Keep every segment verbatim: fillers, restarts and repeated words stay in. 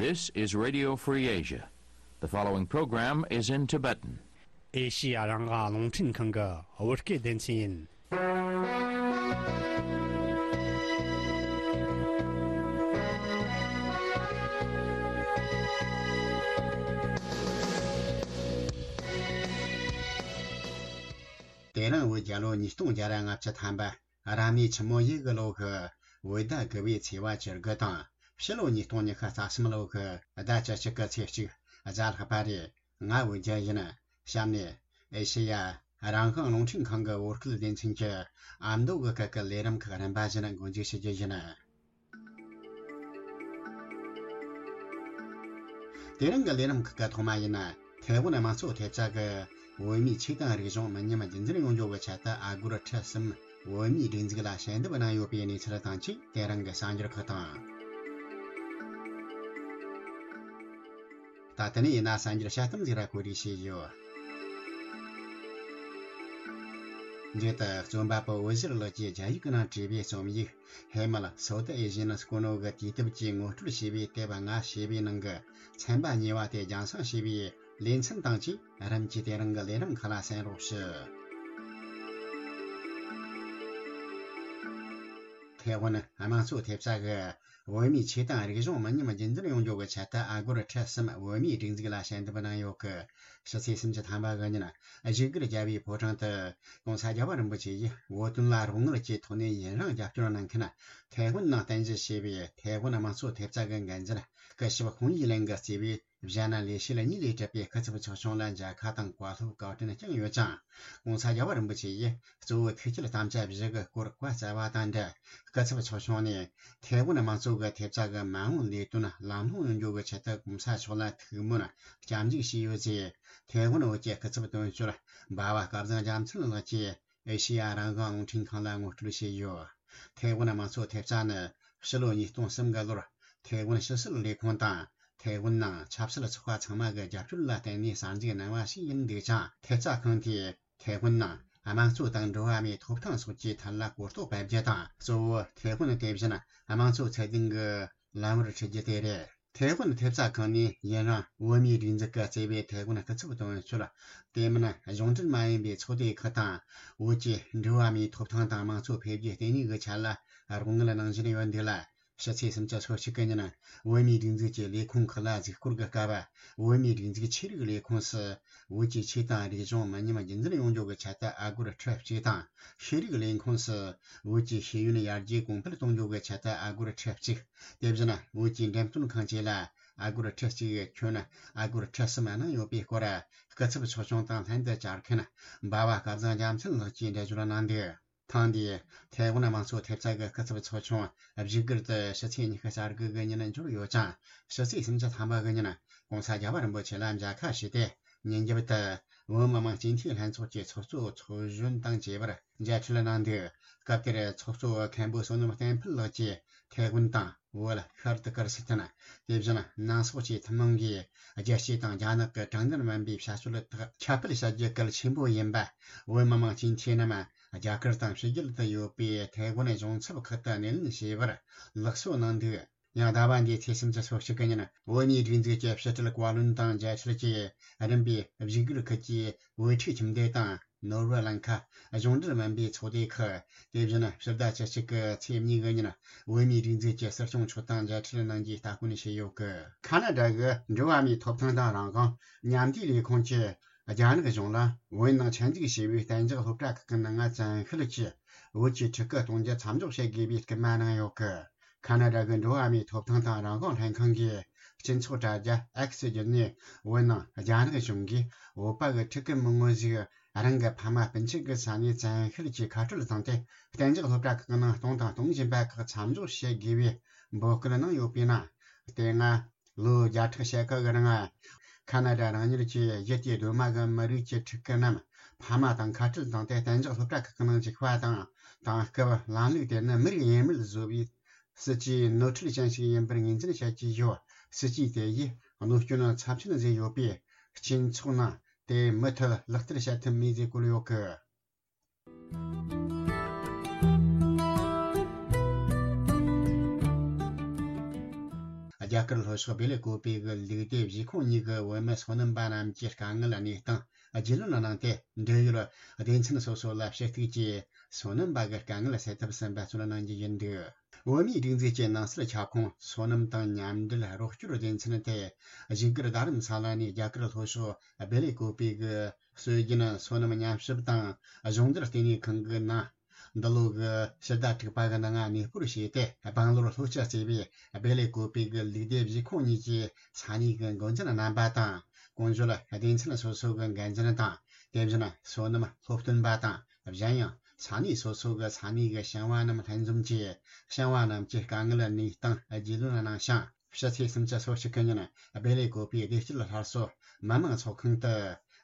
This is Radio Free Asia. The following program is in Tibetan. ཨེ་ཤི་ཡ་རང་དབང་རླུང་འཕྲིན་ཁང་གི་བོད་སྐད་སྡེ་ཚན་ཡིན། དེ་རིང་བོད་རྒྱལ་ལོ་ཉིས་སྟོང་བརྒྱ་ར་ལྔ་བཅུ་ཐམ་པ། རབ་གནས་ཆུ་མོ་ཡོས་གི་ལོ་གི་བོད་ཟླ་དགུ་པའི་ཚེས་པ་བཅུ་དགུ་དང་། ཕྱི་ལོ་ཉིས་སྟོང་ཉི་ཤུ་རྩ་གསུམ་ལོ་གི་ཟླ་བཅུ་གཅིག་གི་ཚེས་གཅིག་གཟའ་ལྷག་པ་རེད། ང་བོད་རྒྱལ་ཡིན། གཤམ་ནས་ཨེ་ཤེ་ཡ་རང་དབང་རླུང་འཕྲིན་ཁང་གི་བོད་སྐད་སྡེ་ཚན་གྱི་ཨ་མདོ་གི་སྐད་ཀྱི་ལས་རིམ་ཁག་རིམ་པ་བཞིན་འགོ་འཛུགས་ཞུ་རྒྱུ་ཡིན། དེ་རིང་གི་ལས་རིམ་ཁག་གི་ཐོག་མ་ཡིན་ན། ཐའེ་ཝན་དམངས་གཙོ་ཐེབས་རྩ་གི་བོད་མིའི་ཆོས་དང་རིག་གཞུང་མི་ཉམས་རྒྱུན་འཛིན་ཡོང་རྒྱུ་གི་ཆེད་དུ་ཨ་སྒོར་ཁྲི་གསུམ་བོད་མིའི་སྒྲིག་འཛུགས་ལ་ཞལ་འདེབས་གནང་ཡོད་པའི་གནས་ཚུལ་དང་བཅས། དེ་རིང་གི་གསར་འགྱུར་ཁག་དང་། ད་ལྟ་ནས་ཡིན་ན་གསར་འགྱུར་དཔྱད་གཏམ་ཟིག་ར་གོ་སྒྲིག་བྱས་ཡོད། མཇུག་ཏུ་རྩོམ་པ་པོ་འོད་ཟེར་ལགས་ཀྱིས་རྒྱ་ཡིག་གི་ནང་བྲིས་པའི་རྩོམ་ཡིག་ཧེ་མལ་སོ་ཏི་ཨེ་ཞེ་ནི་སྐུ་ནོ་གི་དུས་དེབ་ཀྱི་ངོ་སྤྲོད་ཞེས་པའི་དེབ་ལྔ་ཞེས་པའི་ནང་གི་ཚན་པ་གཉིས་པ་དེ་རྒྱང་སྲིང་ཞེས་པའི་ལེ་ཚན་དང་བཅས་རིམ་གྱིས་དེ་རིང་གི་ལས་རིམ་ཁག་ལ་གསན་རོགས་ཞུ། ཐའེ་ཝན་དམངས་གཙོ་ཐེབས་རྩ་གི་བོད་མིའི་ཆོས་དང་རིག་གཞུང་མི་ཉམས་རྒྱུན་འཛིན་ཡོང་རྒྱུ་གི་ཆེད་དུ་ཨ་སྒོར་ཁྲི་གསུམ་བོད་མིའི་སྒྲིག་འཛུགས་ལ་ཞལ་འདེབས་གནང་ཡོད་གི། ཕྱི་ཚེས་སུམ་ཅུ་ཐམ་པ་གི་ཉིན་བཞུགས་སྒར་རྒྱལ་བའི་ཕོ་བྲང་དུ་༸གོང་ས་༸རྒྱལ་བ་རིན་པོ་ཆེ་ཡིས་བོད་དོན་ལ་རོགས་དངུལ་གྱི་ཐོག་ནས་ཡུན་རིང་རྒྱབ་སྐྱོར་གནང་མཁན་ཐའེ་ཝན་ནང་རྟེན་གཞི་བྱས་པའི་ཐའེ་ཝན་དམངས་གཙོ་ཐེབས་རྩ་གི་འགན་འཛིན་སྐུ་ཞབས་ཧུང་ཡི་ལན་གྱིས་གཙོས་པའི་གཞོན་ནུ་ལས་བྱེད་གཉིས་ལས་གྲུབ་པའི་སྐུ་ཚབ་ཚོགས་ཆུང་ལ་མཇལ་ཁ་དང་བཀའ་སློབ་བཀའ་དྲིན་བསྐྱངས་ཡོད་ཅིང་། ༸གོང་ས་༸རྒྱལ་བ་རིན་པོ་ཆེ་ཡིས་གཙོ་བོ་ཐུགས་བསྐྱེད་དམ་བཅའ་བཞི་གི་སྐོར་བཀའ་སྩལ་བ་དང་འབྲེལ། སྐུ་ཚབ་ཚོགས་ཆུང་ནས་ཐའེ་ཝན་དམངས་གཙོ་གི་ཐེབས་རྩ་གི་མ་འོངས་ལས་དོན་ལམ་ལྷོང་ཡོང་རྒྱུ་གི་ཆེད་དུ་༸གོང་ས་མཆོག་ལ་ཐུགས་སྨོན་སྐྱབས་འཇུག་བྱས་ཡོད་ཅེས་ཐའེ་ཝན་བོད་ཀྱི་སྐུ་ཚབ་དོན་གཅོད་འབའ་བ་སྐལ་བཟང་རྒྱ་མཚན་ལགས་ཀྱིས་ཨེ་ཤེ་ཡ་རང་དབང་རླུང་འཕྲིན་ཁང་ལ་ངོ་སྤྲོད་བྱས་ཡོད། ཐའེ་ཝན་དམངས་གཙོ་ཐེབས་རྩ་ནི་ཕྱི་ལོ་ཉིས་སྟོང་གསུམ་གི་ལོར་ཐའེ་ཝན་ཕྱི་སྲིད་ལས་ཁུངས་དང་ཐའེ་ཝན་ནང་ཆབ་སྲིད་ཚོགས་པ་ཚང་མ་གི་རྒྱབ་སྐྱོར་ལ་བརྟེན་ནས་གསར་འཛུགས་གནང་བ་ཞིག་ཡིན་འདུག་ཅིང་། ཐེབས་རྩ་ཁང་དེས་ཐའེ་ཝན་ནང་དམངས་གཙོ་དང་འགྲོ་བ་མིའི་ཐོབ་ཐང་སོགས་ཀྱི་ཐད་ལ་གོ་རྟོགས་སྤེལ་རྒྱུ་དང་། གཙོ་བོ་ཐའེ་ཝན་དེ་བཞིན་དམངས་གཙོ་ཚད་ལྡན་གྱི་ལམ་བུར་ཁྲིད་རྒྱུ་དེ་རེད། ཐའེ་ཝན་ཐེབས་རྩ་ཁང་ནས་ཡུན་རིང་བོད་མིའི་སྒྲིག་འཛུགས་ཀྱིས་གཙོས་པའི་ཐའེ་ཝན་སྐུ་ཚབ་དོན་གཅོད། དེ་མིན་གཞུང་འབྲེལ་མ་ཡིན་པའི་ཚོགས་སྡེ་ཁག་དང་། བོད་ཀྱི་འགྲོ་བ་མིའི་ཐོབ་ཐང་དང་དམངས་གཙོ་འཕེལ་རྒྱས་ལྟེ་གནས་ཀྱི་ཆ་ལ་རོགས་དངུལ་གནང་བཞིན་ཡོད་འདུག་ལ། ཕྱི་ཚེས་སུམ་ཅུ་སོ་གཅིག་གི་ཉིན་བོད་མིའི་སྒྲིག་འཛུགས་ཀྱི་ལས་ཁུངས་ཁག་ལ་གཟིགས་སྐོར་གྱི་སྐབས། བོད་མིའི་སྒྲིག་འཛུགས་ཆོས་རིག་ལས་ཁུངས་སུ་བོད་ཀྱི་ཆོས་དང་རིག་གཞུང་མི་ཉམས་རྒྱུན་འཛིན་ཡོང་རྒྱུ་གི་ཆེད་དུ་ཨ་སྒོར་ཁྲི་གཅིག་དང་། ཤེས་རིག་ལས་ཁུངས་སུ་བོད་ཀྱི་ཤེས་ཡོན་ཡར་རྒྱས་གོང་འཕེལ་གཏོང་རྒྱུ་གི་ཆེད་དུ་ཨ་སྒོར་ཁྲི་གཅིག་དེ་བཞིན་བོད་ཀྱི་འགྲེམས་སྟོན་ཁང་བཅས་ལ་ཨ་སྒོར་ཁྲི་གཅིག་ཁྱོན་ཨ་སྒོར་ཁྲི་གསུམ་གནང་ཡོད་པའི་སྐོར། སྐུ་ཚབ་ཚོགས་ཆུང་དང་ལྷན་དུ་བཅར་མཁན་འབའ་བ་སྐལ་བཟང་རྒྱ་མཚན་ལགས་ཀྱིས་འགྲེལ་བརྗོད་གནང་འདུག་ཐེངས་འདིའི་ཐའེ་ཝན་དམངས་གཙོ་ཐེབས་རྩ་གི་སྐུ་ཚབ་ཚོགས་ཆུང་བཞུགས་སྒར་དུ་ཕྱི་ཚེས་ཉི་ཤུ་རྩ་དགུ་གི་ཉིན་འབྱོར་ཡོད་ཅིང་། ཕྱི་ཚེས་སུམ་ཅུ་ཐམ་པ་གི་ཉིན་༸གོང་ས་༸རྒྱལ་བ་རིན་པོ་ཆེ་ལ་མཇལ་ཁ་ཞུས་ཏེ། ཉིན་རྒྱབ་ཏུ་བོད་མི་མང་སྤྱི་འཐུས་ལྷན་ཚོགས་ཀྱི་ཚོགས་གཙོ་ཚོགས་གཞོན་དང་བཅས་པར་མཇལ་འཕྲད་གནང་འདུག་སྐབས་དེར་ཚོགས་གཙོ་བོ་མཁན་པོ་བསོད་ནམས་བསྟན་འཕེལ་ལགས་ཀྱིས་ཐའེ་ཝན་དང་བོད། ཤར་ཏི་ཀིར་སི་ཐན། དེ་བཞིན་ནང་སོག་བཅས་ཐུན་མོང་གིས་རྒྱལ་སྤྱི་དང་རྒྱ་ནག་གི་དྲང་བདེན་མིན་པའི་བྱ་སྤྱོད་དག་ཁྱབ་སྤེལ་བྱ་རྒྱུ་གལ་ཆེན་པོ་ཡིན་པ། བོད་མི་མང་སྤྱི་འཐུས་རྣམས་རྒྱ་གར་དང་ཕྱི་རྒྱལ་དུ་ཡོད་པའི་ཐའེ་ཝན་གཞུང་ཚབ་ཁག་ཏུ་སྣེ་ལེན་བྱས་པར་ལེགས་གསོལ་གནང་འདུག་ཡང་ཟླ་བ་འདིའི་ཚེས་སུམ་ཅུ་སོ་གཅིག་གི་ཉིན་བོད་མིའི་སྒྲིག་འཛུགས་ཀྱི་ཕྱི་དྲིལ་བཀའ་བློན་དང་མཇལ་འཕྲད་ཀྱིས་རིམ་པས་བཞུགས་སྒར་ཁུལ་གྱི་བོད་ཕྲུག་ཁྱིམ་སྡེ་དང་། ནོར་བུ་གླིང་ཁ། གཞུང་འབྲེལ་མིན་པའི་ཚོགས་སྡེ་ཁག་དེ་བཞིན་ཕྱི་ཟླ་བཅུ་གཅིག་གི་ཚེས་གཉིས་གི་ཉིན་བོད་མིའི་སྒྲིག་འཛུགས་ཀྱི་སྲིད་སྐྱོང་མཆོག་དང་མཇལ་འཕྲད་གནང་རྒྱུའི་སྟ་གོན་བྱས་ཡོད་གི། ཁ་ན་ཌ་གི་འགྲོ་བ་མིའི་ཐོབ་ཐང་དང་རང་དབང་མཉམ་འབྲེལ་ལས་ཁུངས་ཀྱིས་རྒྱ་ནག་གཞུང་ལ་བོད་ནང་ཆེད་འཛུགས་བྱས་པའི་གཏན་འཇགས་སློབ་གྲྭ་ཁག་གི་ནང་བཙན་ཤེད་ཀྱིས་བོད་ཀྱི་ཕྲུ་གུ་གཏོང་རྒྱུ་མཚམས་འཇོག་བྱེད་དགོས་པའི་སྐུལ་མ་གནང་ཡོད་གི། ཁ་ན་ཌ་གི་འགྲོ་བ་མིའི་ཐོབ་ཐང་དང་རང་དབང་ལྷན་ཁང་གིས་སྤྱི་ཚོགས་དྲ་རྒྱ་X་བརྒྱུད་ནས་བོད་ནང་རྒྱ་ནག་གཞུང་གིས་བོད་པ་གི་ཕྲུ་གུ་མི་ངོ་ཞིག་རང་གི་ཕ་མ་སྤུན་མཆེད་ཀྱི་ས་ནས་བཙན་ཤེད་ཀྱིས་ཁ་སྤྲོད་བཏང་སྟེ་གཏན་འཇགས་སློབ་གྲྭ་ཁག་ནང་གཏོང་དང་གཏོང་བཞིན་པ་ཁག་མཚམས་འཇོག་བྱེད་དགོས་པའི་འབོད་སྐུལ་གནང་ཡོད་པའི་ནང་། དེ་སྔ་ལོ་བརྒྱ་ཕྲག་ཕྱེད་ཀ་གི་རིང་ཁ་ན་ཌ་རང་ཉིད་ཀྱི་གཞི་རྩའི་གདོད་མ་གི་མི་རིགས་ཀྱི་ཕྲུ་གུ་རྣམས་ཕ་མ་དང་ཁ་སྤྲོད་བཏང་སྟེ་གཏན་འཇགས་སློབ་གྲྭ་ཁག་གི་ནང་འཇུག་པ་དང་། དེང་སྐབས་ལམ་ལུགས་དེ་ནི་མི་རིགས་དབྱེ་མེད་བཟོ་བའི་སྲིད་ཇུས་ནོར་འཁྲུལ་ཅན་ཞིག་ཡིན་པར་ངོས་འཛིན་བྱ་རྒྱུ་ཡོད། སྲིད་ཇུས་དེ་ཡིས་གནོད་སྐྱོན་ཚབས་ཆེན་བཟོས་ཡོད་པས། སྤྱི་ཚོགས་ནང་དེ་མུ་མཐུད་ལག་བསྟར་བྱ་ཐུབ་མེད་ཅེས་བཀོད་ཡོད་གི། རྒྱ་གར་ལྷོ་ཕྱོགས་བེ་ལེ་ཀོ་པེ་གི་ལུགས་སྡེ་བཞི་ཁོངས་གཉིས་ཀྱི་བོད་མི་སོ་ནམ་པ་རྣམས་ཀྱི་དཀའ་ངལ་གནས་སྟངས་རྒྱུས་ལོན་གནང་སྟེ། འབྲེལ་ཡོད་སྡེ་ཚན་སོ་སོ་ལ་ཞུ་གཏུག་གིས་སོ་ནམ་པ་གི་དཀའ་ངལ་སེལ་ཐབས་སུ་འབད་བརྩོན་གནང་རྒྱུ་ཡིན་འདུག་བོད་མིའི་སྒྲིག་འཛུགས་ཀྱི་ནང་སྲིད་ཁྱབ་ཁོངས་སོ་ནམ་དང་མཉམ་འབྲེལ་རོགས་སྐྱོར་སྡེ་ཚན་དེ་བཞུགས་སྒར་རྡ་རམ་ས་ལ་ནས་རྒྱ་གར་ལྷོ་ཕྱོགས་བེ་ལེ་ཀོ་པེ་གི་སྲོལ་རྒྱུན་སོ་ནམ་མཉམ་ཞིབ་དང་སྦྱོང་བརྡར་ལྟེ་གནས་ཁང་གི་ནང་། འདི་ལོ་གི་ཕྱི་ཟླ་དྲུག་པ་གི་ནང་གནས་སྤོར་བྱས་ཏེ། སྦང་ལོར་ལྷོ་སྤྱི་གཙོས་པའི་བེ་ལེ་ཀོ་པེ་གི་ལུགས་སྡེ་བཞི་ཁོངས་གཉིས་ཀྱི་ས་གནས་ཀྱི་འགོ་འཛིན་རྣམ་པ་དང་། གོང་བརྗོད་སྡེ་ཚན་སོ་སོ་གི་འགན་འཛིན་དང་། དེ་བཞིན་སོ་ནམ་སློབ་སྟོན་པ་དང་། གཞན་ཡང་ས་གནས་སོ་སོ་གི་ས་གནས་ཀྱི་ཞིང་བ་རྣམས་ལྷན་འཛོམས་ཀྱིས་ཞིང་བ་རྣམས་ཀྱི་དཀའ་ངལ་གནས་སྟངས་རྒྱུས་ལོན་གནང་ཞིང་། ཕྱི་ཚེས་སུམ་ཅུ་སོ་གཅིག་གི་ཉིན་སྦེལ་ཀོབ་པའི་བདེ་སྐྱིད་སླར་གསོ་མི་དམངས་ཚོགས་ཁང་དུ།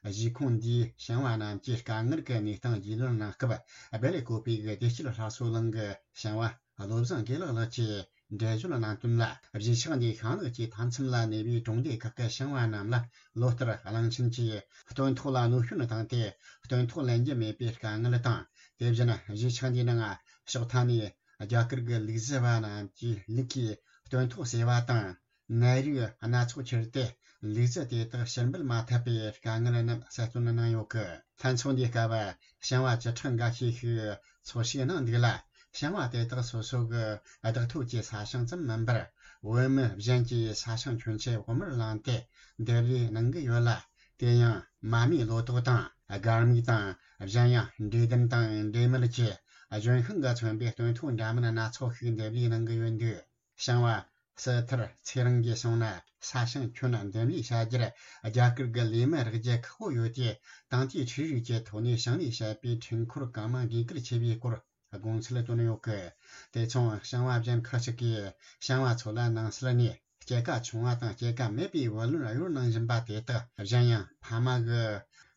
གཞིས་ཁོངས་འདིའི་ཞིང་བ་རྣམས་ཀྱི་དཀའ་ངལ་གྱི་གནས་སྟངས་རྒྱུས་ལོན་གནང་སྐབས། སྦེལ་ཀོབ་པའི་བདེ་སྐྱིད་སླར་གསོ་གླིང་གི་ཞིང་བ་བློ་བཟང་དགེ་ལེགས་ལགས་ཀྱིས་འགྲེལ་བརྗོད་གནང་དོན་ལ། གཞིས་ཆགས་འདིའི་ཤིང་ནགས་ཀྱི་མཐའ་མཚམས་ལ་གནས་པའི་གྲོང་སྡེ་ཁག་གི་ཞིང་བ་རྣམས་ལ་ལོ་ལྟར་གླིང་ཆེན་གྱིས་སྟོན་ཐོག་ལ་གནོད་སྐྱོན་བཏང་སྟེ། སྟོན་ཐོག་ལེན་རྒྱུ་མེད་པའི་དཀའ་ངལ་དང་། དེ་བཞིན་གཞིས་ཆགས་འདིའི་ནང་ཕྱོགས་མཐའ་ནས། རྒྱ་གར་གྱི་ལུག་རྫི་བ་རྣམས་ཀྱི་ལུག་གིས་སྟོན་ཐོག་ཟོས་པ་དང་། ནད་རིགས་སྣ་ཚོགས་ཁྱེར་ཏེ་ལུག་རྫི་དེ་དག་ཕྱིར་འབུད་མ་ཐུབ་པའི་དཀའ་ངལ་རྣམས་གསལ་སྟོན་གནང་ཡོད་ཀི། ལྷན་ཚོགས་འདིའི་སྐབས་ཞིང་བ་བཅུ་ཕྲག་འགའ་ཤས་ཤིག་འཚོལ་ཞིབ་གནང་འདུག་ལ། ཞིང་བ་དེ་དག་སོ་སོ་གི་བདག་ཐོབ་ཀྱི་ས་ཞིང་ཙམ་མིན་པར། བོད་མི་གཞན་གྱི་ས་ཞིང་ཁྱོན་ཆེ་བོགས་མར་བླངས་ཏེ་འདེབས་ལས་གནང་གི་ཡོད་ལ། དེ་ཡང་མ་རྨོས་ལོ་ཏོག་དང་སྒར་མིག་དང་། གཞན་ཡང་འབྲས་ལྡུམ་དང་འབྲས་མལ་གྱི་ལྗོན་ཤིང་གིས་མཚོན་པའི་སྟོན་ཐོག་འདྲ་མིན་སྣ་ཚོགས་ཤིག་འདེབས་ལས་གནང་གི་ཡོད་འདུག་ཞིང་བ་སི་ཐར་ཚེ་རིང་གིས་གསུངས་ན། ས་ཞིང་ཁྱོན་འདེབས་ལས་བྱ་རྒྱུར་རྒྱ་གར་གྱི་ལས་མི་རག་རྒྱུ་ཁག་པོ་ཡོད་དེ། ཏང་ཨུད་ཀྱིས་འཕྲུལ་རིག་གི་ཐོག་ནས་ཞིང་ལས་བྱེད་པའི་འཕྲུལ་འཁོར་གང་མང་དགོས་གལ་ཆེ་བའི་སྐོར་དགོངས་ཚུལ་བཏོན་ཡོད་ཀི། དེ་མཚུངས་ཞིང་བ་གཞན་ཁག་ཅིག་གིས་ཞིང་བ་ཚོ་ལ་ནང་སྲིད་ནས་སྐྱེད་ཀ་ཆུང་བ་དང་སྐྱེད་ཀ་མེད་པའི་བུ་ལོན་གཡོར་གནང་བཞིན་པ་དེ་དག་གཞན་ཡང་ཕ་མ་གི་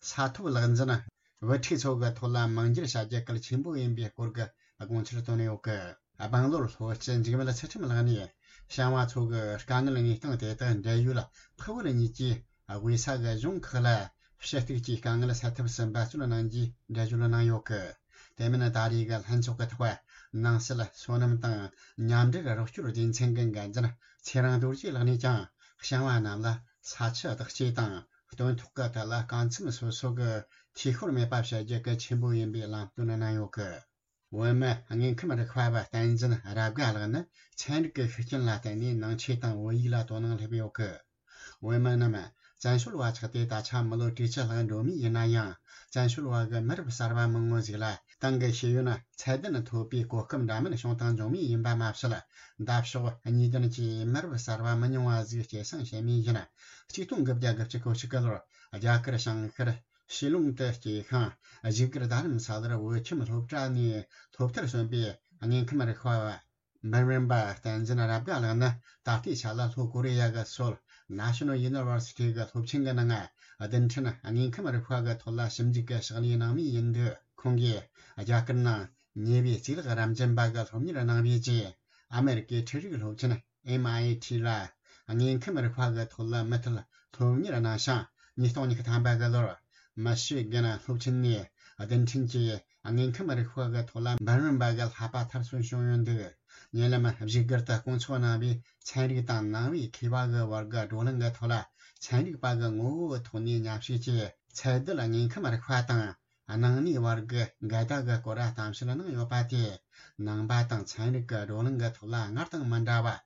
ས་ཐོབ་ལག་འཛིན་བུ་ཕྲུག་ཚོ་གི་ཐོག་ལ་མང་འགྱུར་བྱ་རྒྱུ་གལ་ཆེན་པོ་ཡིན་པའི་སྐོར་གྱི་དགོངས་ཚུལ་བཏོན་ཡོད་ཀི། སྦང་ལོར་ལྷོ་སྤྱི་འཇིགས་མེད་ཚུལ་ཁྲིམས་ལགས་ནས་ཞིང་བ་ཚོ་གི་དཀའ་ངལ་གནས་སྟངས་དེ་དག་འབྲེལ་ཡོད་ཕུག་བར་གཉིས་ཀྱིས་དབུས་ས་གི་གཞུང་ཁག་ལ་ཞུ་གཏུག་གིས་དཀའ་ངལ་སེལ་ཐབས་སུ་འབད་བརྩོན་གནང་རྒྱུའི་འགྲེལ་བརྗོད་གནང་ཡོད་ཀི། དེ་མིན་ད་རེས་ཀྱི་ལྷན་ཚོགས་ཀྱི་ཐོག་ནང་སྲིད་སོ་ནམ་དང་མཉམ་འབྲེལ་རོགས་སྐྱོར་སྡེ་ཚན་གྱི་འགན་འཛིན་ཚེ་རིང་རྡོ་རྗེ་ལགས་ནས་ཀྱང་ཞིང་བ་རྣམས་ལ་ས་ཆུ་བདག་སྐྱེད་དང་སྟོན་ཐོག་གི་ཐད་ལ་རྐང་ཚུགས་སོ་སོ་གི་འཐུས་ཤོར་མེད་པ་བྱ་རྒྱུ་གལ་ཆེན་པོ་ཡིན་པའི་ལམ་སྟོན་གནང་ཡོད་ཀི། བོད་མི་དངོས་ཁམས་རིག་པ་བ་བསྟན་འཛིན་རབ་དགའ་ལགས་ནི་ཚན་རིག་གི་ཤུགས་རྐྱེན་ལ་བརྟེན་ནས་ནང་ཆོས་དང་བོད་ཡིག་ལ་དོ་སྣང་སླེབས་ཡོད་ཀི། བོད་མི་རྣམས་བཙན་བྱོལ་བ་ཆགས་ཏེ་ད་ཆ་མི་ལོ་དྲུག་ཅུ་ལྷག་འགྲོ་མུས་ཡིན་ན་ཡང་། བཙན་བྱོལ་བ་གི་མི་རབས་གསར་བ་མང་བོ་ཞིག་ལ་ཏང་གི་ཤེས་ཡོན་ཚད་ལྡན་ཐོབ་པའི་གོ་སྐབས་འདྲ་མིན་བྱུང་དང་འབྱུང་མུས་ཡིན་པ་མ་ཟད། འདབ་ཕྱོགས་གཉིས་ལྡན་གྱི་མི་རབས་གསར་བ་མི་ཉུང་བ་ཞིག་སྐྱེད་སྲིང་བྱེད་མུས་ཡིན། ཆིག་སྟོང་དགུ་བརྒྱ་དགུ་བཅུ་གོ་གཅིག་གི་ལོར་རྒྱ་གར་བྱང་ཤར། ཤི་ལོང་དུ་སྐྱེས་ཤིང་། བཞུགས་སྒར་རྡ་རམ་ས་ལར་བོད་ཁྱིམ་སློབ་གྲྭ་ནས་སློབ་མཐར་སོན་པའི་དངོས་ཁམས་རིག་པ་བ། འབུམ་རམས་པ་བསྟན་འཛིན་རབ་དགའ་ལགས་ནི་ད་ལྟའི་ཆ་ལ་ལྷོ་ཀོ་རི་ཡ་གི་སོལ་National University གི་སློབ་ཆེན་གྱི་ནང་བདུན་ཕྲག་དངོས་ཁམས་རིག་པ་གི་ཐོག་ལ་ཞིབ་འཇུག་གི་ཕྱག་ལས་གནང་མུས་ཡིན་འདུག་ཁོང་གིས་རྒྱ་གར་ནང་ཉེ་བའི་གཙུག་ལག་རབ་འབྱམས་པ་གི་སློབ་གཉེར་གནང་བའི་རྗེས། ཨ་མེ་རི་ཀའི་འཕྲུལ་རིག་སློབ་ཆེན་M I T ལ་དངོས་ཁམས་རིག་པ་གི་ཐོག་ལ་མུ་མཐུད་སློབ་གཉེར་གནང་ཞིང་། ཉིས་སྟོང་ཉི་ཤུ་ཐམ་པ་གི་ལོར་མི་ཤི་གན་སློབ་ཆེན་ནས་རྡུལ་ཕྲན་གྱི་དངོས་ཁམས་རིག་པ་གི་ཐོག་ལ་འབུམ་རམས་པ་གི་བསླབ་པ་མཐར་སོན་བྱུང་ཡོད་འདུག་ཉེ་ལམ་བཞུགས་སྒར་དུ་སྐུ་ཚོགས་གནང་བའི་ཚན་རིག་དང་ནང་པའི་མཁས་པ་གི་བར་གྱི་བགྲོ་གླེང་གི་ཐོག་ལ། ཚན་རིག་པ་གི་ངོ་བོའི་ཐོག་ནས་མཉམ་ཞུགས་ཀྱིས་ཚད་རྡུལ་དངོས་ཁམས་རིག་པ་དང་། སྣང་གནས་བར་གྱི་འགལ་ཟླ་གི་སྐོར་གཏམ་བཤད་གནང་ཡོད་པ་དེས། ནང་པ་དང་ཚན་རིག་གི་བགྲོ་གླེང་གི་ཐོག་ལ་སྔར་དང་མི་འདྲ་བ།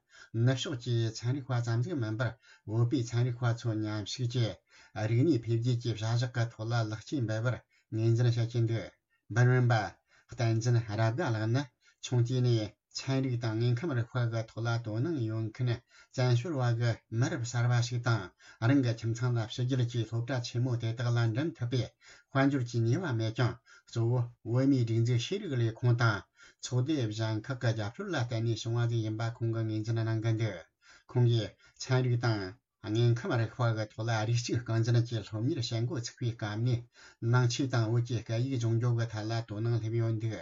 ནུབ་ཕྱོགས་ཀྱི་ཚན་རིག་པ་ཙམ་ཞིག་མིན་པར། བོད་པའི་ཚན་རིག་པ་ཚོ་མཉམ་ཞུགས་ཀྱིས། རིག་གནས་འཕེལ་རྒྱས་ཀྱི་བྱ་གཞག་གི་ཐོག་ལ་ལེགས་སྐྱེས་འབུལ་བར་ངོས་འཛིན་བྱེད་ཀྱིན་འདུག་འབུམ་རམས་པ་བསྟན་འཛིན་རབ་དགའ་ལགས་ནི། ཆུང་དུས་ནས། ཚན་རིག་དང་དངོས་ཁམས་རིག་པ་གི་ཐོག་ལ་དོ་སྣང་ཡོད་མཁན་བཙན་བྱོལ་བ་གི་མི་རབས་གསར་བ་ཞིག་དང་། རང་གི་ཁྱིམ་ཚང་ལ་ཕྱི་རྒྱལ་གྱི་སློབ་གྲྭ་ཆེན་མོ་དེ་དག་ལ་འགྲིམ་ཐུབ་པའི་དཔལ་འབྱོར་གྱི་ནུས་པ་མེད་ཀྱང་། གཙོ་བོ་བོད་མིའི་སྒྲིག་འཛུགས་ཤེས་རིག་ལས་ཁུངས་དང་ཚོགས་སྡེ་གཞན་ཁག་གི་རྒྱབ་སྐྱོར་ལ་བརྟེན་ནས་བྱུང་བ་ཞིག་ཡིན་པ་ཁོང་གིས་ངོས་འཛིན་གནང་གི་འདུག་ཁོང་གིས་ཚན་རིག་དང་། དངོས་ཁམས་རིག་པ་གི་ཐོག་ལ་རིགས་གཅིག་རྐང་འཛིན་གྱི་སློབ་གཉེར་བྱེད་འགོ་ཚུགས་པའི་སྐབས་ནས། ནང་ཆོས་དང་བོད་ཀྱི་སྐད་ཡིག་སྦྱོང་རྒྱུ་གི་ཐད་ལ་དོ་སྣང་སླེབས་ཡོད་འདུག་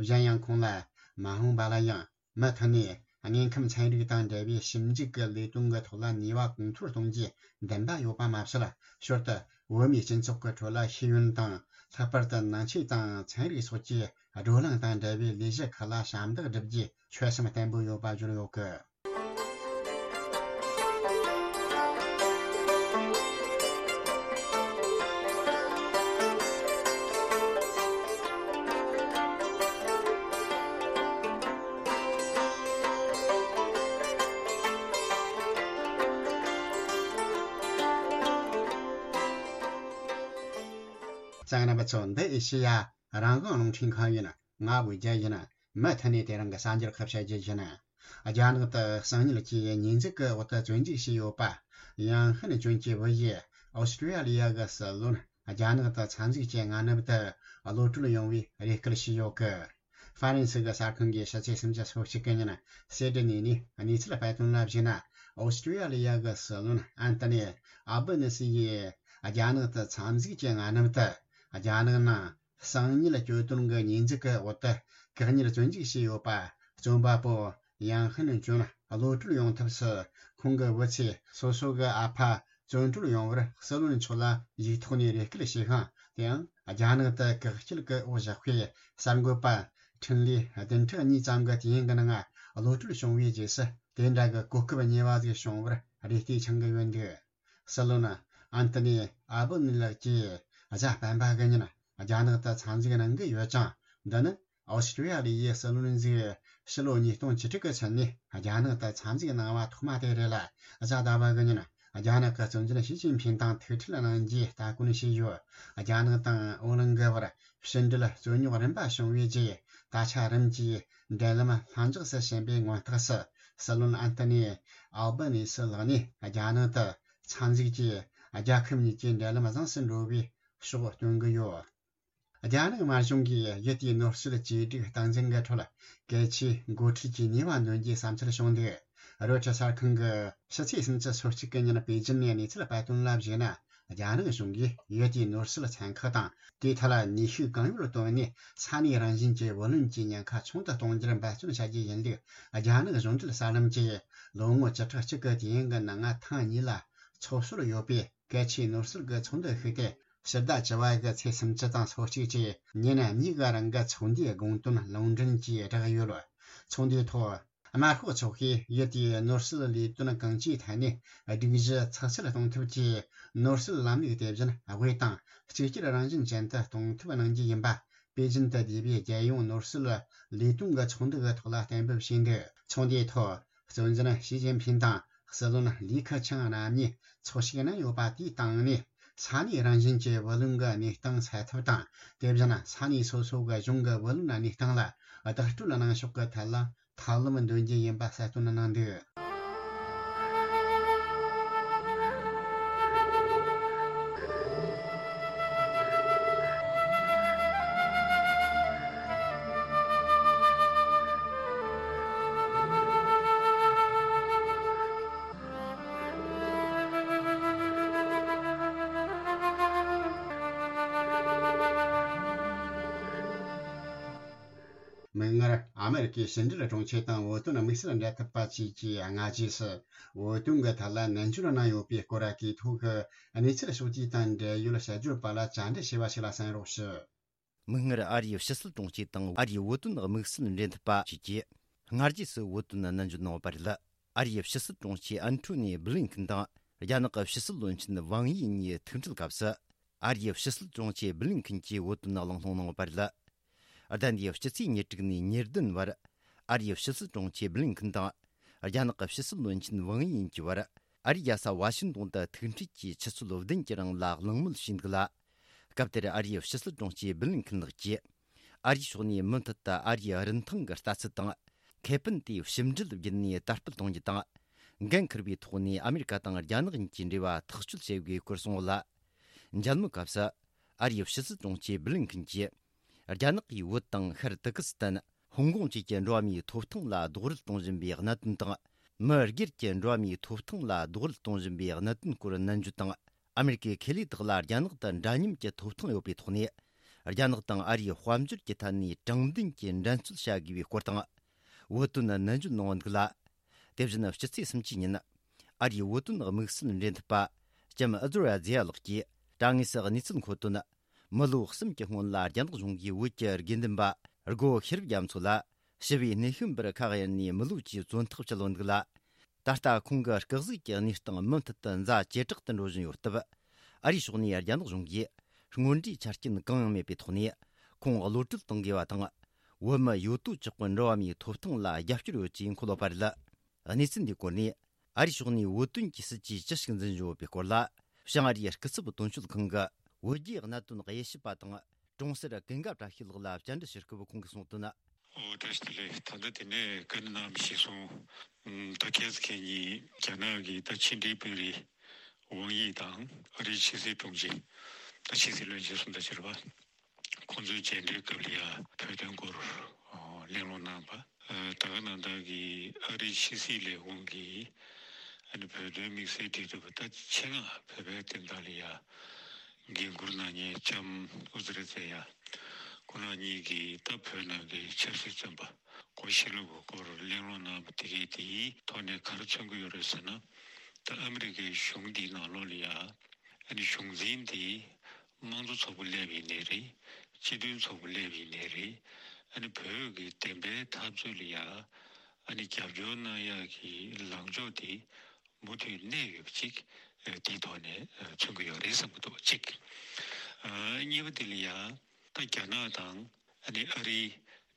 གཞན་ཡང་ཁོང་ལ། མ་འོངས་པ་ལ་ཡང་མུ་མཐུད་ནས་དངོས་ཁམས་ཚན་རིག་དང་འབྲེལ་བའི་ཞིབ་འཇུག་གི་ལས་དོན་གྱི་ཐོག་ལ་ནུས་པ་གོང་མཐོར་གཏོང་རྒྱུའི་འདུན་པ་ཡོད་པ་མ་ཟད། ཞོར་དུ་བོད་མིའི་སྤྱི་ཚོགས་ཀྱི་ཁྲོད་ལ་ཤེས་ཡོན་དང་། ལྷག་པར་དུ་ནང་ཆོས་དང་ཚན་རིག་སོགས་ཀྱི་བགྲོ་གླེང་དང་འབྲེལ་བའི་ལས་གཞི་ཁག་ལ་ཞབས་འདེགས་སྒྲུབ་རྒྱུའི་ཆོད་སེམས་བརྟན་པོ་ཡོད་པ་བརྗོད་ཡོད་སྐད། དང་རྣམ་པ་ཚོ། འདི་ཨེ་ཤེ་ཡ་རང་དབང་རླུང་འཕྲིན་ཁང་ཡིན། ང་དབུས་རྒྱལ་ཡིན། མུ་མཐུད་ནས་དེ་རིང་གི་གསར་འགྱུར་ཁག་བཤད་རྒྱུ་ཡིན། རྒྱ་ནག་ཏུ་གསང་ཉུལ་གྱི་ཉེས་འཛུགས་ཀྱི་འོག་ཏུ་བཙོན་འཇུག་བྱས་ཡོད་པ། ཡང་ཧན་ཅུན་གྱི་བུ་ཡིས་ཨོ་སི་ཀྲི་ཡ་ལི་ཡ་གི་སྲིད་བློན་རྒྱ་ནག་ཏུ་འཚར་འཛུགས་ཀྱི་སྔ་ནུབ་ཏུ་གློད་གྲོལ་ཡོང་བའི་རེ་སྐུལ་བྱས་ཡོད་གི། ཧྥ་རན་སི་གི་གསར་ཁང་གི་ཕྱི་ཚེས་སུམ་ཅུ་སོ་གཅིག་གི་ཉིན་སེ་ཏི་ནི་ནས་གནས་ཚུལ་སྤེལ་དོན་ལ་གཞིགས་ན། ཨོ་སི་ཀྲི་ཡ་ལི་ཡ་གི་སྲིད་བློན་ཨན་ཏི་ནི་ཨལ་བྷ་ནི་སི་ཡིས་རྒྱ་ནག་ཏུ་འཚར་འཛུགས་ཀྱི་སྔ་ནུབ་ཏུ་རྒྱ་ནག་ནང་གསང་ཉུལ་གྱོད་དོན་གྱི་ཉེས་འཛུགས་ཀྱི་འོག་ཏུ་བཀག་ཉར་བཙོན་འཇུག་བྱས་ཡོད་པ། བཙོན་པ་པོ་ཡང་ཧན་ཅུན་གློད་གྲོལ་ཡོང་ཐབས་སུ་ཁོང་གི་བུ་ཚོས་སོ་སོ་གི་ཨ་ཕ་བཙོན་གྲོལ་ཡོང་བར་སྲིད་བློན་མཆོག་ལ་ཡིག་ཐོག་ནས་རེ་སྐུལ་བྱས་ཤིང་། དེའང་རྒྱ་ནག་ཏུ་བཀག་སྐྱིལ་གྱི་འོག་བཞག་པའི་གསར་འགོད་པ་འཕྲིན་ལས་བདུན་ཕྲག་གཉིས་ཙམ་གྱི་དུས་ཡུན་གྱི་ནང་གློད་གྲོལ་བྱུང་བའི་རྗེས་སུ། དེ་འདྲ་གི་གོ་སྐབས་རྙེད་པ་ཞིག་བྱུང་བར་རེ་ལྟོས་འཆང་གི་ཡོད་འདུག། སྲིད་བློན་ཨན་ཏི་ནི་ཨལ་བྷ་ནི་ལགས་ཀྱིས་གཟའ་སྤེན་པ་གི་ཉིན་རྒྱ་ནག་ཏུ་འཚར་འཛེགས་གནང་གི་ཡོད་ཅིང་། འདི་ནི་ཨོ་སི་ཀྲི་ཡ་ལི་ཡའི་སྲིད་བློན་ཟིག་ཕྱི་ལོ་ཉིས་སྟོང་བཅུ་དྲུག་གི་ཚུན་ནས་རྒྱ་ནག་ཏུ་འཚར་འཛེགས་གནང་བ་ཐོག་མ་དེ་རེད་ལ། གཟའ་ཟླ་བ་གི་ཉིན་རྒྱ་ནག་གི་གཙོ་འཛིན་ཞི་ཅིན་ཕིང་དང་ཐུག་འཕྲད་གནང་རྒྱུའི་སྟ་གོན་བྱས་ཡོད། རྒྱ་ནག་དང་ཨོ་གླིང་གི་བར་ཕྱི་འབྲེལ་རྩོད་རྙོག་རིམ་པ་བྱུང་བའི་རྗེས། ད་ཆ་རིམ་གྱིས་འབྲེལ་ལམ་ལྷིང་འཇགས་སུ་ཕྱིན་པའི་མངོན་རྟགས་སུ། སྲིད་བློན་ཨན་ཏི་ནི་ཨལ་བྷ་ནི་སི་ལགས་ནས་རྒྱ་ནག་ཏུ་འཚར་འཛེགས་ཀྱིས་རྒྱལ་ཁབ་གཉིས་ཀྱི་འབྲེལ་ལམ་བཟང་སུ་འགྲོ་བའི་ཕྱོགས་སྟོན་གྱི་ཡོད། རྒྱ་ནག་དམར་གཞུང་གིས་ཡུལ་དེའི་ནོར་སྲིད་བཅོས་སྒྲིག་སྟངས་འཛིན་གྱི་ཁྲོད་གལ་ཆེའི་འགོ་ཁྲིད་ཀྱི་ནུས་པ་འདོན་རྒྱུའི་བསམ་ཚུལ་བྱུང་འདུག། རོའི་ཊར་གསར་ཁང་གིས་ཕྱི་ཚེས་སུམ་ཅུ་སོ་གཅིག་གི་ཉིན་པེ་ཅིན་ནས་གནས་ཚུལ་སྤེལ་དོན་ལ་གཞིགས་ན། རྒྱ་ནག་གཞུང་གིས་ཡུལ་དེའི་ནོར་སྲིད་ཚན་ཁག་དང་། དེའི་ཐད་ལ་ནུས་ཤུགས་གང་ཡོད་བཏོན་ནས་ས་གནས་རང་བཞིན་གྱི་བུ་ལོན་གྱི་ཉེན་ཁ་ཆུང་དུ་གཏོང་རྒྱུར་འབད་བརྩོན་བྱ་རྒྱུ་ཡིན་ལུགས། རྒྱ་ནག་གཞུང་འབྲེལ་གསར་ལམ་གྱིས་ལོ་ངོ་བཅུ་ཕྲག་གཅིག་གི་དུས་ཡུན་གྱི་ནང་ང་ཐེངས་གཉིས་ལ་ཚོགས་སྲོལ་ཡོད་པའི་གལ་ཆེའི་ནོར་སྲིད་ཀྱི་ཚོགས་འདུ་ཞིག་སྟེ། ཕྱི་ཟླ་བཅུ་པ་གི་ཚེས་སུམ་ཅུ་དང་སོ་གཅིག་བཅས་ཉིན་གཉིས་ཀྱི་རིང་གི་ཚོགས་འདུའི་དགོངས་དོན་ལུང་འདྲེན་གྱིས་བསྒྲགས་ཡོད། ཚོགས་འདུའི་ཐོག་དམར་ཤོག་ཚོགས་པས་ཡུལ་དེའི་ནོར་སྲིད་ལས་དོན་གང་ཅིའི་ཐད་ནས་སྒྲིག་གཞི་ཚགས་ཚུད་གཏོང་ཐབས་ཀྱིས། ནོར་སྲིད་ལམ་ལུགས་དེ་བཞིན་དབུས་དང་གཅིག་གྱུར་རང་བཞིན་ཅན་དུ་གཏོང་ཐབས་གནང་རྒྱུ་ཡིན་པ། པེ་ཅིན་དུ་བསྡུས་པའི་རྒྱལ་ཡོངས་ནོར་སྲིད་ལས་དོན་གྱི་ཚོགས་འདུ་གི་ཐོག་ལ་གཏན་འབེབས་བྱས་འདུག། ཚོགས་འདུའི་ཐོག་གཙོ་འཛིན་ཞི་ཅིན་ཕིང་དང་སྲིད་བློན་ལི་ཁེ་ཆང་རྣམ་གཉིས་ཚོགས་ཞུགས་གནང་ཡོད་པ་དེའི་སྟེང་ནས། ས་གནས་རང་བཞིན་གྱི་བུ་ལོན་གྱི་གནས་སྟངས་སེལ་ཐབས་དང་། དེ་བཞིན་ས་གནས་སོ་སོ་གི་གཞུང་གི་བུ་ལོན་གནས་སྟངས་ལ་བདག་སྤྲོད་གནང་ཕྱོགས་ཀྱི་ཐད་ལ་ཐབས་ལམ་འདོན་རྒྱུ་ཡིན་པ་གསལ་སྟོན་གནང་འདུག། མིག་སྔར། ཨ་མེ་རི་ཀའི་ཕྱི་འབྲེལ་དྲུང་ཆེ་དང་བོད་དོན་དམིགས་བསལ་འབྲེལ་མཐུད་པ་བཅས་ཀྱིས་སྔ་རྗེས་སུ་བོད་དོན་གྱི་ཐད་ལ་ནན་བརྗོད་གནང་ཡོད་པའི་སྐོར་གྱི་ཐོག་གི་གནས་ཚུལ་ཕྱོགས་བསྡུས་དང་འབྲེལ་ཡོད་དཔྱད་བརྗོད་པ་ལ་བཅར་འདྲི་ཞུས་པ་ཞིག་ལ་གསན་རོགས་ཞུ། མིག་སྔར། ཨ་རིའི་ཕྱི་སྲིད་དྲུང་ཆེ་དང་ཨ་རིའི་བོད་དོན་དམིགས་བསལ་འབྲེལ་མཐུད་པ་བཅས་ཀྱིས་སྔ་རྗེས་སུ་བོད་དོན་ནན་བརྗོད་གནང་ཡོད་པ་རེད། ཨ་རིའི་ཕྱི་སྲིད་དྲུང་ཆེ་ཨན་ཐོ་ནི་བྷི་ལིན་ཁིན་དང་རྒྱ་ནག་གི་ཕྱི་སྲིད་བློན་ཆེན་ཝང་ཡི་གཉིས་ཐུག་འཕྲད་སྐབས་སུ། ཨ་རིའི་ཕྱི་སྲིད་དྲུང་ཆེ་བྷི་ལིན་ཁིན་གྱིས་བོད་དོན་གླེང་སློང་གནང་ཡོད་པ་རེད། ཟླ་འདིའི་སྤྱི་ཚེས་ཉེར་དྲུག་ནས་ཉེར་བདུན་བར། ཨ་རིའི་ཕྱི་སྲིད་དྲུང་ཆེ་བྷི་ལིན་ཁིན་དང་། རྒྱ་ནག་གི་ཕྱི་སྲིད་བློན་ཆེན་ཝང་ཡི་གཉིས་ཀྱི་བར། ཨ་རིའི་རྒྱལ་ས་ཝ་ཤིང་ཏོན་དུ་ཐུག་འཕྲད་ཀྱིས་ཆུ་ཚོད་བདུན་གྱི་རིང་ལ་གླེང་མོལ་བྱས་འདུག་ལ། སྐབས་དེར་ཨ་རིའི་ཕྱི་སྲིད་དྲུང་ཆེ་བྷི་ལིན་ཁིན་ལགས་ཀྱིས། ཨ་རིའི་ཕྱོགས་ནས་མུ་མཐུད་དུ་ཨ་རིའི་རིན་ཐང་གི་ལྟ་ཚུལ་དང་། ཁེ་ཕན་དེ་ཕྱི་འབྲེལ་བརྒྱུད་ནས་དར་སྤེལ་གཏོང་རྒྱུ་དང་། འགན་འཁུར་བའི་ཐོག་ནས་ཨ་མེ་རི་ཀ་དང་རྒྱ་ནག་གཉིས་ཀྱི་འབྲེལ་བ་ཐག་གཅོད་བྱེད་དགོས་སྐོར་གསུངས་ཡོད་ལ། མཇལ་མོལ་སྐབས་སུ། ཨ་རིའི་ཕྱི་སྲིད་དྲུང་ཆེ་བྷི་ལིན་ཁིན་གྱིས། རྒྱ་ནག་གིས་བོད་དང་ཤར་ཏུར་ཀི་སི་ཐན། ཧོང་ཀོང་བཅས་ཀྱི་འགྲོ་བ་མིའི་ཐོབ་ཐང་ལ་རྡོག་རོལ་གཏོང་བཞིན་པའི་གནད་དོན་དང་། མི་སྒེར་གྱི་འགྲོ་བ་མིའི་ཐོབ་ཐང་ལ་རྡོག་རོལ་གཏོང་བཞིན་པའི་གནད་དོན་སྐོར་ནན་བརྗོད་དང་། ཨ་མེ་རི་ཀའི་ཁེ་ལས་དག་ལ་རྒྱ་ནག་ཏུ་འདྲ་མཉམ་གྱི་ཐོབ་ཐང་ཡོད་པའི་ཐོག་ནས། རྒྱ་ནག་དང་ཨ་རིའི་དཔལ་འབྱོར་གྱི་ཐད་ནས་དྲང་བདེན་གྱི་འགྲན་རྩོད་བྱ་དགོས་པའི་སྐོར་དང་། བོད་དོན་ནན་བརྗོད་གནང་འདུག་ལ། དེ་བཞིན་སྤྱི་ཚེས་སུམ་ཅུའི་ཉིན། ཨ་རིའི་བོད་དོན་དམིགས་བསལ་འབྲེལ་མཐུད་པ། ལྕམ་ཨ་ཛོར་ཡ་ཛེ་ཡ་ལགས་ཀྱིས། དྲ་ངོས་སུ་གནས་ཚུལ་འཁོད་དོན། མི་ལོ་གསུམ་གྱི་སྔོན་ལ་རྒྱ་ནག་གཞུང་གིས་བོད་ཀྱི་དགེ་འདུན་པ་སྒོ་ཤེས་རབ་རྒྱ་མཚོ་ལ་ཞི་བའི་གནས་བཤམས་པར་ཁ་གཡར་ནས་མི་ལོ་བཅུའི་བཙོན་ཐག་བཅད་ཡོད་འདུག་ལ། ད་ལྟ་ཁོང་གི་སྐུ་གཟུགས་ཀྱི་གནས་སྟངས་མུ་མཐུད་དུ་ཛ་ཇེ་དྲག་ཏུ་འགྲོ་བཞིན་ཡོད་སྟབས། ཨ་རིའི་ཕྱོགས་ནས་རྒྱ་ནག་གཞུང་གིས་སྔོན་འགྲོའི་ཆ་རྐྱེན་གང་ཡང་མེད་པའི་ཐོག་ནས་ཁོང་གློད་གྲོལ་གཏོང་དགོས་པ་དང་། བོད་མི་ཡོད་དོ་ཅོག་གི་འགྲོ་བ་མིའི་ཐོབ་ཐང་ལ་རྒྱབ་སྐྱོར་ཡོད་ཅེས་འཁོད་ཡོད་པ་རེད། གནས་ཚུལ་འདིའི་སྐོར་ནས། ཨ་རིའི་ཕྱོགས་ནས་བོད་དོན་གྱི་སྲིད་ཇུས་ཅི་ཞིག་འཛིན་བཞིན་ཡོད་པའི་སྐོར་ལ། བྱང་ཨ་རིའི་སྐུ་ཚབ་དོན་གཅོད་ཁང་གི་ བོད་རྒྱའི་གནད་དོན་དབྱེ་ཞིབ་པ་དང་གྲོང་གསེབ་ཀུན་དགའ་བཀྲ་ཤིས་ལགས་ལ་བཅར་འདྲི་ཞུ་སྐབས་ཁོང་གིས་གསུངས་དོན། ཨོ་བཀྲ་ཤིས་བདེ་ལེགས། ད་ལྟ་དེ་ནས་བཀའ་འདྲི་གནང་བ་གཞིར་བཟུང་། ད་ཁྱེད་ཚོ་ཁྱེད་གཉིས་རྒྱ་ནག་གི་ད་ཕྱི་འབྲེལ་དཔོན་རིགས་ཝང་ཡི་དང་ཨ་རིའི་ཕྱི་སྲིད་དྲུང་ཆེ། ད་ཕྱི་སྲིད་བློན་ཆེན་གསུམ་དང་བཅས་པ། ཁོང་ཚོའི་མཇལ་འཕྲད་སྐབས་ལ་ཡ་བོད་དོན་སྐོར་གླེང་སློང་གནང་བ། ད་ག་ནང་བཞིན་གྱི་ཨ་རིའི་ཕྱི་སྲིད་ལས་ཁུངས་ཀྱི་ཨ་ནི་བོད་དོན་དམིགས་བསལ་འབྲེལ་མཐུད་པ་ད་ཆེད་མངགས་བོད་པའི་བསྟན་བདག་ལ་ཡ་འགན་འཁུར་གནང་མཁན་ལྕམ་ཨུ་ཛི་ར་ཛེ་ཡ། ཁོང་རྣམ་གཉིས་ཀྱིས་ད་བོད་ནང་གི་ཆབ་སྲིད་བཙོན་པ་སྒོ་ཕྱེ་ལུགས་ཀྱི་སྐོར་གླེང་སློང་གནང་བ་དེ་གས་དེའི་ཐོག་ནས་ག་རེ་མཚོན་གྱི་ཡོད་རེད་ཟེར་ན། ད་ཨ་མི་རི་ཀའི་གཞུང་འདིའི་ནང་ལོགས་ལ་ཡ་ཨ་ནི་གཞུང་འཛིན་དེ་དམངས་གཙོ་ཚོགས་པ་སླེབས་ཡིན་ནའི་རེད། སྤྱི་མཐུན་ཚོགས་པ་སླེབས་ཡིན་ནའི་རེད། ཨ་ནི་བོད་ཀྱི་བདེན་པའི་འཐབ་རྩོད་ལ་ཡ་ཨ་ནི་རྒྱབ་སྐྱོར་གནང་ཡག་གི་ལངས་ཕྱོགས་དེ་མུ་མཐུད་གནས་ཡོད་པ་ཅིག་ཨ་དེའི་ཐོག་ནས་ཨ་མཚོན་གྱི་ཡོད་རེད་བསམ་གྱི་འདུག་གཅིག་ཨ་གཉིས་པ་དེ་ལ་ཡ་ད་རྒྱ་ནག་དང་ཨ་ནི་ཨ་རིའི་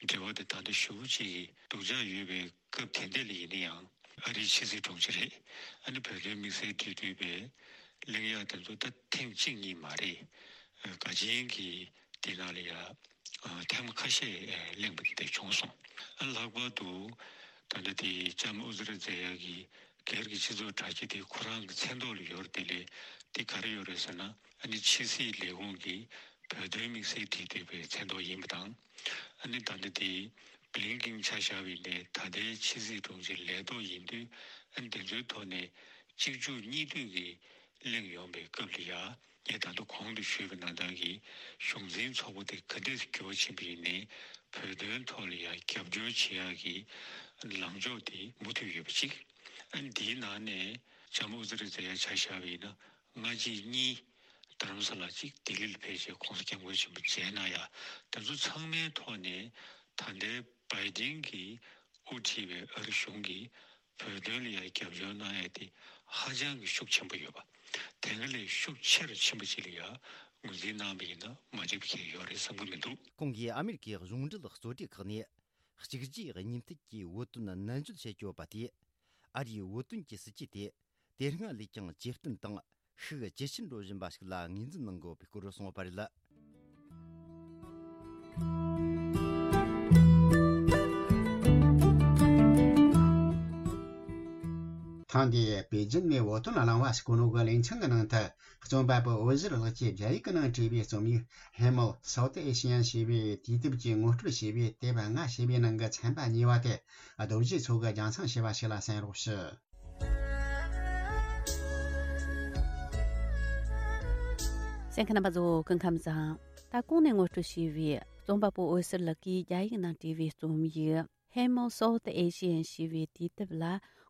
འབྲེལ་བ་དེ་ད་ལྟ་ཞེ་པོ་ཅིག་གི་སྡུག་ཅག་ཡོད་པའི་སྐབས་དེ་འདྲ་ལ་ཡིན་ན་ཡང་། ཨ་རིའི་ཕྱི་སྲིད་དྲུང་ཆེ་རེད། ཨ་ནི་བོད་དོན་དམིགས་བསལ་འབྲེལ་མཐུད་པའི་གླེང་ཡག་དེ་ཚོ་ད་ཐེངས་གཅིག་གཉིས་མ་རེད། ཨ་ག་ཅན་གྱི་དེ་ནང་ལ་ཡ་ཨ་ཐེངས་མ་ཁ་ཤས་ཨ་གླེང་བ་དེ་འདྲ་བྱུང་སོང་། ཨ་ལྷག་པར་དུ་ད་ལྟ་དེ་ལྕམ་ཨུ་ཛི་ར་ཛེ་ཡ་གི་སྒེར་གྱི་སྤྱི་ཚོགས་དྲ་རྒྱ་དེ་ཁོ་རང་གི་མཚན་ཐོག་ལ་ཡོད་རེད། དེ་ལས་དེ་ག་རེ་ཡོད་རེད་ཟེར་ན། ཨ་ནི་ཕྱི་སྲིད་ལས་ཁུངས་ཀྱི་བོད་དོན་དམིགས་བསལ་འབྲེལ་མཐུད་པའི་མཚན་ཐོག་ཡིན་པ་དང་། ཨ་ནི་ད་ལྟ་དེ་བྷི་ལིན་ཀིན་ཆ་བཞག་པ་ཡིན་ནའི་ད་ལྟའི་ཕྱི་སྲིད་དྲུང་ཆེ་ལས་ཐོག་ཡིན་དུས། ཨ་ནི་དེ་ཚོའི་ཐོག་ནས་གཅིག་མཇུག་གཉིས་མཐུད་ཀྱི་གླེང་ཡོང་པའི་སྐབས་ལ་ཡ། ངས་ད་དུང་གོང་དུ་ཞུས་པ་ནང་ལྟར་གྱི་གཞུང་འཛིན་ཚོགས་པ་དེ་ག་འདྲས་འགྱུར་བ་ཕྱིན་པ་ཡིན་ནའི་བོད་དོན་ཐོག་ལ་ཡང་རྒྱབ་སྐྱོར་བྱེད་ཡག་གི་ལངས་ཕྱོགས་དེ་མུ་མཐུད་ཡོད་པ་གཅིག་ཨ་ནི་འདིའི་ནང་ནས་ལྕམ་ཨུ་ཛི་རི་ཛེ་ཡ་ཆ་བཞག་པ་ཡིན་ན་སྔ་རྗེས་གཉིས་རྡ་རམ་ས་ལ་གཅིག་ལྡི་ལི་ལ་ཕེབས་བྱས་གོང་ས་སྐྱབས་མགོན་ཆེན་པོ་མཇལ་གནང་ཡ། དེ་ཚོ་ཚང་མའི་ཐོག་ནས་ད་ལྟའི་བྷའི་ཌེན་གྱིས་དབུ་ཁྲིད་པའི་ཨ་རི་གཞུང་གིས་བོད་དོན་ལ་ཡང་རྒྱབ་སྐྱོར་གནང་ཡ་དེ་ཧ་ཅང་གི་ཤུགས་ཆེན་པོ་ཡོད་པ། དེ་སྔ་ལས་ཤུགས་ཆེ་རུ་ཕྱིན་པ་ཅིག་ལ་ཡང་ངོས་འཛིན་གནང་བ་ཡིན་ན་མ་འགྲིག་པ་གང་ཡང་ཡོད་རེད་བསམ་གྱི་མི་འདུག་ཁོང་གིས་ཨ་མེ་རི་ཁའི་གཞུང་འབྲེལ་གཙོ་གྲས་ཁག་ནས་གཅིག་རྗེས་གཉིས་མཐུད་ཀྱིས་བོད་དོན་ནན་བརྗོད་བྱེད་ཀྱི་ཡོད་པ་དེས། ཨ་རིའི་བོད་དོན་གྱི་སྲིད་ཇུས་དེ་དེ་སྔ་ལས་ཀྱང་ཇེ་བརྟན་དང་ཤུགས་ཇེ་ཆེར་འགྲོ་བཞིན་པ་ཞིག་ལ་ངོས་འཛིན་གནང་དགོས་པའི་སྐོར་གསུངས་པ་རེད། ཐེངས་འདིའི་པེ་ཅིན་ནས་བོད་དོན་གླེང་བ་ཟེར་གོ་ནོ་གི་ལེ་ཚན་གྱི་ནང་དུ། རྩོམ་པ་པོ་འོད་ཟེར་ལགས་ཀྱིས་རྒྱ་ཡིག་གི་ནང་བྲིས་པའི་རྩོམ་ཡིག་Hemel South Asian ཞེས་པའི་དུས་དེབ་ཀྱི་ངོ་སྤྲོད་བྱས་པའི་དེབ་ལྔ་ཞེས་པའི་ནང་གི་ཚན་པ་གཉིས་པ་དེ། རྡོ་རྗེ་མཚོ་གིས་རྒྱང་སྲིང་བྱས་པ་ཞིག་ལ་གསན་རོགས་ཞུ། གསན་མཁན་རྣམ་པ་ཚོ་སྐུ་ཁམས་བཟང་། ད་གོང་ནས་ངོ་སྤྲོད་བྱས་པའི་རྩོམ་པ་པོ་འོད་ཟེར་ལགས་ཀྱིས་རྒྱ་ཡིག་ནང་བྲིས་པའི་རྩོམ་ཡིག Hemel South Asian ཞེས་པའི་དུས་དེབ་ལ་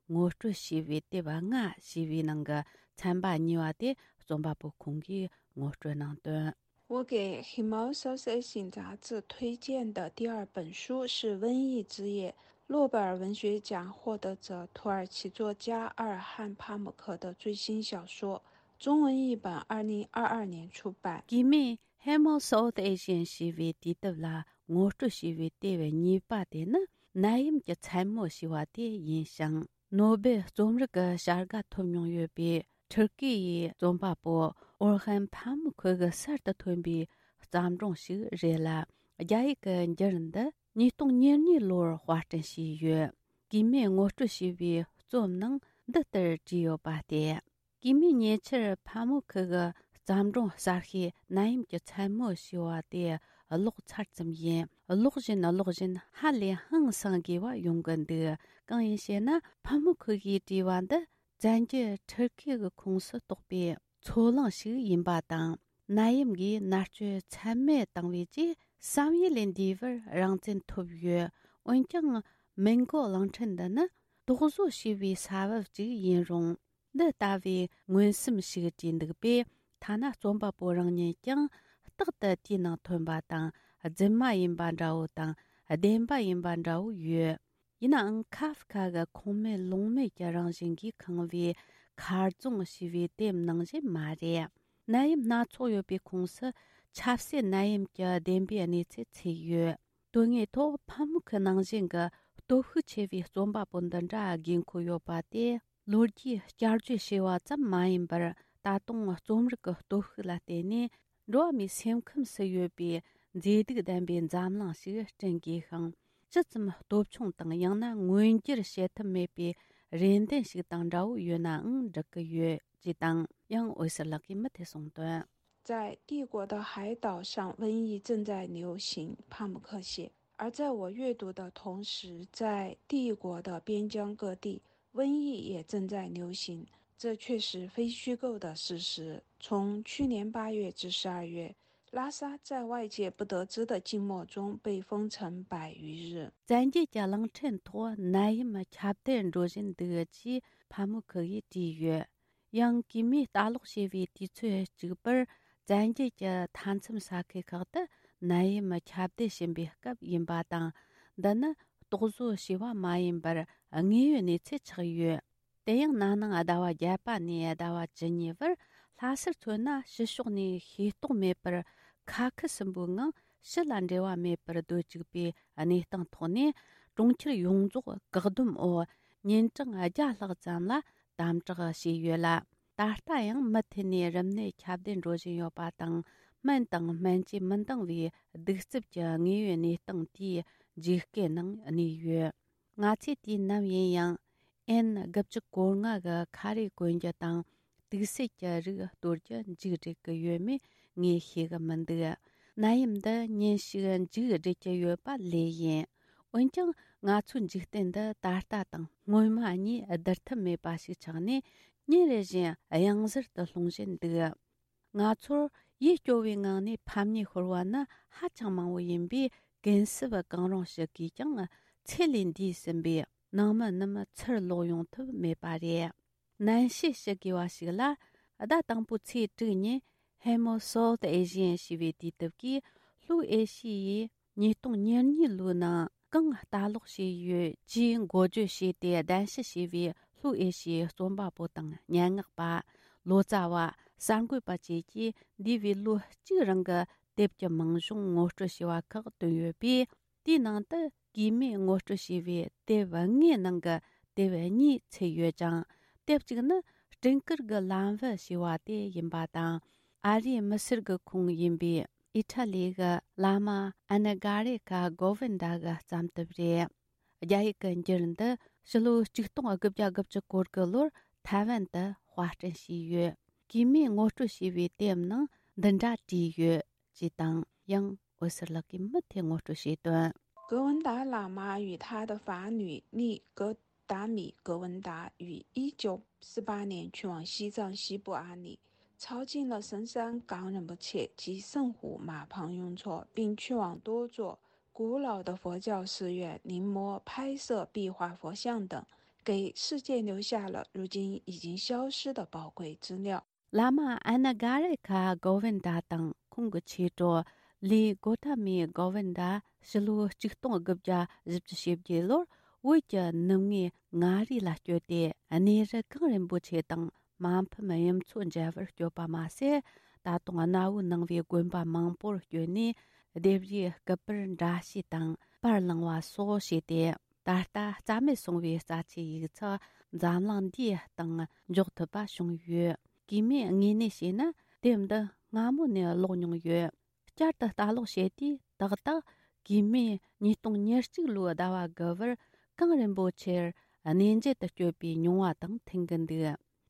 ངོ་སྤྲོད་བྱས་པའི་དེབ་ལྔ་ཞེས་པའི་ནང་གི་ཚན་པ་གཉིས་པ་དེ་རྩོམ་པ་པོ་ཁོང་གིས་ངོ་སྤྲོད་གནང་དོན། 我给《Hemel South Asian》杂志推荐的第二本书是《瘟疫之夜》，诺贝尔文学奖获得者、土耳其作家阿尔汉·帕姆克的最新小说，中文译本二零二二年出版。 གི་མི་Hemel South Asian ཞེས་པའི་དུས་དེབ་ལ་ངོ་སྤྲོད་བྱས་པའི་དེབ་གཉིས་པ་དེ་ནི་ནད་ཡམས་ཀྱི་མཚན་མོ་ཞེས་པ་དེ་ཡིན་ཞིང་། ནོ་སྦེལ་རྩོམ་རིག་གི་བྱ་དགའ་ཐོབ་མྱོང་ཡོད་པའི་ཐུར་ཀི་ཡི་རྩོམ་པ་པོ་ཨོར་ཧན་ཕ་མུ་ཁུ་གི་གསར་དུ་ཐོན་པའི་བརྩམས་སྒྲུང་ཞིག་རེད་ལ། རྒྱ་ཡིག་གི་འགྱུར་འདི་ཉིས་སྟོང་ཉེར་གཉིས་ལོར་དཔར་སྐྲུན་བྱས་ཡོད། གི་མིས་ངོ་སྤྲོད་བྱས་པའི་རྩོམ་ནང་འདི་ལྟར་བྲིས་ཡོད་པ་སྟེ། གི་མིས་ཉེ་ཆར་ཕ་མུ་ཁུ་གི་བརྩམས་སྒྲུང་གསར་ཤོས་ནད་ཡམས་ཀྱི་མཚན་མོ་ཞེས་པ་དེ་ཀློག་ཚར་ཙམ་ཡིན། ཀློག་བཞིན་ཀློག་བཞིན་ཧ་ལས་ཧང་སང་དགོས་པ་ཡོང་གི་འདུག་གང་ཡིན་ཞེ་ན། ཕ་མུ་ཁུ་གིས་བྲིས་པ་འདི་བཙན་གྱིས་ཐུར་ཁེ་གི་ཁོངས་སུ་གཏོགས་པའི་མཚོ་གླིང་ཞིག་ཡིན་པ་དང་། ནད་ཡམས་ཀྱིས་མནར་གཅོད་ཚད་མེད་བཏང་བའི་རྗེས་བསམ་ཡུལ་ལས་འདས་པར་རང་བཙན་ཐོབ་ཡོད། འོན་ཀྱང་མིན་གོ་གླིང་ཕྲན་འདི་ནི་དོགས་བཟོ་བྱས་པའི་ས་བབ་ཅིག་ཡིན་རུང་། འདི་ལྟ་བུའི་མངོན་སུམ་ཞིག་བྲིས་འདུག་པས། ཐ་ན་རྩོམ་པ་པོ་རང་ཉིད་ཀྱང་རྟག་ཏུ་དེའི་ནང་ཐོན་པ་དང་རྫུན་མ་ཡིན་པ་འདྲ་བོ་དང་བདེན་པ་ཡིན་པ་འདྲ་བོ་ཡོད། ཡིན་ནའང་ཁ་ཧྥ་ཁ་གི་ཁུངས་མེད་ལུང་མེད་ཀྱི་རང་བཞིན་གྱིས་ཁེངས་པའི་མཁར་རྫོང་ཞེས་པའི་དེབ་ནང་བཞིན་མ་རེད། ནད་ཡམས་སྣ་ཚོགས་ཡོད་པའི་ཁོངས་སུ་ཆབ་སྲིད་ནད་ཡམས་ཀྱི་བདེན་པའི་གནས་ཚུལ་ཚུད་ཡོད། དོན་དངོས་ཐོག་ཕ་མུ་ཁུ་ནང་བཞིན་གྱི་སྟོབས་ཤུགས་ཆེ་བའི་རྩོམ་པ་པོ་འདི་འདྲ་དགོས་མཁོ་ཡོད་པ་དེ། ལོ་རྒྱུས་བསྐྱར་བརྗོད་བྱས་པ་ཙམ་མ་ཡིན་པར། ད་དུང་རྩོམ་རིག་གི་སྟོབས་ཤུགས་ལ་བརྟེན་ནས་ འགྲོ་བ་མིའི་སེམས་ཁམས་སུ་ཡོད་པའི་མཛེས་སྡུག་ལྡན་པའི་འཛམ་གླིང་ཞིག་བསྐྲུན་དགོས་ཤིང་། ཇི་ཙམ་སྟོབས་ཆུང་དང་ཡང་ན་མངོན་འགྱུར་བྱེད་ཐབས་མེད་པའི་རེ་འདུན་ཞིག་དང་འདྲ་བོ་ཡོད་ནའང་འགྲིག་གི་ཡོད་ཅེས་དང་། ཡང་འོད་ཟེར་ལགས་ཀྱིས་མུ་མཐུད་གསུངས་དོན། 在帝国的海岛上，瘟疫正在流行，帕姆克写。而在我阅读的同时，在帝国的边疆各地，瘟疫也正在流行。这确实非虚构的事实。从去年八月至十二月，拉萨在外界不得知的静默中被封城百余日。 བཙན་རྒྱལ་གྱི་གླིང་ཕྲན་ཐོག་ནད་ཡམས་ཁྱབ་གདལ་འགྲོ་བཞིན་འདུག་ཅེས་ཕ་མུ་ཁུ་ཡིས་བྲིས་ཡོད། ཡང་གིས་མོས་ལྟ་ཀློག་བྱས་པའི་དུས་ཚོད་གཅིག་པར། བཙན་རྒྱལ་གྱི་མཐའ་མཚམས་ས་ཁུལ་ཁག་ཏུ་ནད་ཡམས་ཁྱབ་གདལ་བྱིན་པའི་སྐབས་ཡིན་པ་དང་། འདི་ནི་རྟོག་བཟོ་བྱས་པ་མ་ཡིན་པར་དངོས་ཡོད་གནས་ཚུལ་ཆགས་ཡོད། དེ་ཡང་ན་ནིང་ཟླ་བ་བརྒྱད་པ་ནས་ཟླ་བ་བཅུ་གཉིས་བར་ལྷ་སར་མཚོན་ན་ཕྱི་ཕྱོགས་ནས་ཤེས་རྟོགས་མེད་པར་ཁ་ཁུ་སིམ་པོའི་ངང་ཕྱི་ལ་འབྲེལ་བ་མེད་པར་སྡོད་བཅུག་པའི་གནས་སྟངས་ཐོག་ནས། གྲོང་ཁྱེར་ཡོངས་རྫོགས་བཀག་སྡོམ་འོག་ཉིན་གྲངས་བརྒྱ་ལྷག་ཙམ་ལ་དམ་དྲག་བྱས་ཡོད་ལ། ད་ལྟ་ཡང་མུ་མཐུད་ནས་རིམས་ནད་ཁྱབ་གདལ་འགྲོ་བཞིན་ཡོད་པ་དང་། སྨན་དང་སྨན་བཅོས་མི་འདང་བའི་གདུག་རྩུབ་ཀྱི་དངོས་ཡོད་གནས་སྟངས་དེའི་ཇུས་སྐལ་ནང་གནས་ཡོད། ང་ཚོས་དུས་ནམ་ཡིན་ཡང་ཨེན་དགུ་བཅུ་གོ་ལྔ་གི་ཁ་རས་གོན་རྒྱུ་དང་དུག་སེལ་གྱི་རིགས་གཏོར་རྒྱུ་མཇུག་སྒྲིལ་གི་ཡོད་མེད་ངས་ཤེས་གི་མི་འདུག་ནད་ཡམས་འདི་ཉིན་ཞིག་མཇུག་སྒྲིལ་གྱི་ཡོད་པ་ལོས་ཡིན། འོན་ཀྱང་ང་ཚོའི་འཇིག་རྟེན་འདི་ད་ལྟ་དང་སྔོན་མ་གཉིས་བསྡུར་ཐབས་མེད་པ་ཞིག་ཆགས་ནས་ཉིན་རེ་བཞིན་གཡང་གཟར་དུ་ལྷུང་བཞིན་འདུག་ང་ཚོར་ཡིད་སྐྱོ་བའི་ངང་ནས་ཕམ་ཉེས་ཤོར་བ་ནི་ཧ་ཅང་མང་བོ་ཡིན་པས། གུན་གསབ་གང་རུང་ཞུ་དགོས་ཀྱང་ཚེ་ལས་འདས་ཟིན་པས་ནང་མི་རྣམས་ཚུར་ལོག་ཡོང་ཐུབ་མེད་པ་རེད། ནན་བཤད་ཞུ་དགོས་པ་ཞིག་ལ། ཟླ་དང་པོའི་ཚེས་དྲུག་ཉིན་Hemo South Asian ཞེས་པའི་དུས་དེབ་ཀྱིས་ལྷོའི་ཨེ་ཤི་ཡའི་ཉིས་སྟོང་ཉེར་གཉིས་ལོའི་ནང་གང་ལྟ་ཀློག་བྱས་ཡོད་ཅེས་འགོ་བརྗོད་བྱས་ཏེ་གདན་ཞུ་བྱས་པའི་ལྷོའི་ཨེ་ཤི་ཡའི་རྩོམ་པ་པོ་དང་སྙན་ངག་པ། ལོ་ཙཱ་བ། གསར་འགོད་པ་བཅས་ཀྱིས་འདས་པའི་ལོ་གཅིག་རིང་གི་དེབ་ཀྱི་མིང་གཞུང་ངོ་སྤྲོད་བྱས་པ་ཁག་བཏོན་ཡོད་པས། དེའི་ནང་དུ་གིས་མོས་ངོ་སྤྲོད་བྱས་པའི་དེབ་ལྔའི་ནང་གི་དེབ་གཉིས་ཚུད་ཡོད་ཅིང་། དེབ་གཅིག་ནི་སྤྲིན་དཀར་གྱི་ལམ་བུ་ཞེས་པ་དེ་ཡིན་པ་དང་། ཨ་རིའི་མི་སེར་གྱི་ཁོངས་ཡིན་པའི་ཨི་ཊ་ལི་གི་བླ་མ་ཨ་ན་གྷ་རེ་ཁ་གོ་ཝིན་ཌ་གི་བརྩམས་དེབ་རེད། རྒྱ་ཡིག་གི་འགྱུར་འདི་ཕྱི་ལོ་ཆིག་སྟོང་དགུ་བརྒྱ་དགུ་བཅུ་གོ་དགུ་ལོར་ཐའེ་ཝན་དུ་དཔར་སྐྲུན་བྱས་ཡོད། གིས་མོས་ངོ་སྤྲོད་བྱས་པའི་དེབ་ནང་འདི་འདྲ་བྲིས་ཡོད་ཅེས་དང་། ཡང་འོད་ཟེར་ལགས་ཀྱིས་མུ་མཐུད་ངོ་སྤྲོད་བྱས་དོན། 格温达喇嘛与他的法女丽格达米·格温达于一九四八年去往西藏西部阿里，抄近了神山冈仁波切及圣湖玛旁雍措，并去往多座古老的佛教寺院临摹、拍摄壁画、佛像等，给世界留下了如今已经消失的宝贵资料。 བླ་མ་ཨ་ན་གྷ་རེ་ཁ་གོ་ཝིན་ཌ་དང་ཁོང་གི་མཆེད་གྲོགས་ལི་གོ་ཐ་མི་གོ་ཝིན་ཌ་ཕྱི་ལོ་ཆིག་སྟོང་དགུ་བརྒྱ་བཞི་བཅུ་ཞེ་བརྒྱད་ལོར་བོད་ཀྱི་ནུབ་ངོས་མངའ་རིས་ལ་བསྐྱོད་དེ། གནས་རི་གངས་རིན་པོ་ཆེ་དང་མ་ཕམ་གཡུ་མཚོ་མཇལ་བར་བསྐྱོད་པ་མ་ཟད། ད་དུང་གནའ་བོའི་ནང་པའི་དགོན་པ་མང་པོར་བསྐྱོད་ནས་ལྡེབས་རིས་སྐུ་པར་འདྲ་བཤུས་དང་པར་བླངས་པ་སོགས་བྱས་ཏེ། ད་ལྟ་རྩ་མེད་སོང་བའི་རྩ་ཆེའི་ཡིག་ཚགས་འཛམ་གླིང་འདིའི་སྟེང་འཇོག་ཐུབ་པ་བྱུང་ཡོད། གིས་མོས་དངོས་གནས་བཤད་ན་དེབ་འདི་སྔ་མོ་ནས་ཀློག་མྱོང་ཡོད། བསྐྱར་དུ་ལྟ་ཀློག་བྱས་དུས་ཏག་ཏག་གིས་མོས་ཉིས་སྟོང་ཉེར་གཅིག་ལོའི་ཟླ་བ་དགུ་པར་གངས་རིན་པོ་ཆེར་གནས་མཇལ་དུ་བསྐྱོད་པའི་མྱོང་བ་དང་མཐུན་གྱི་འདུག་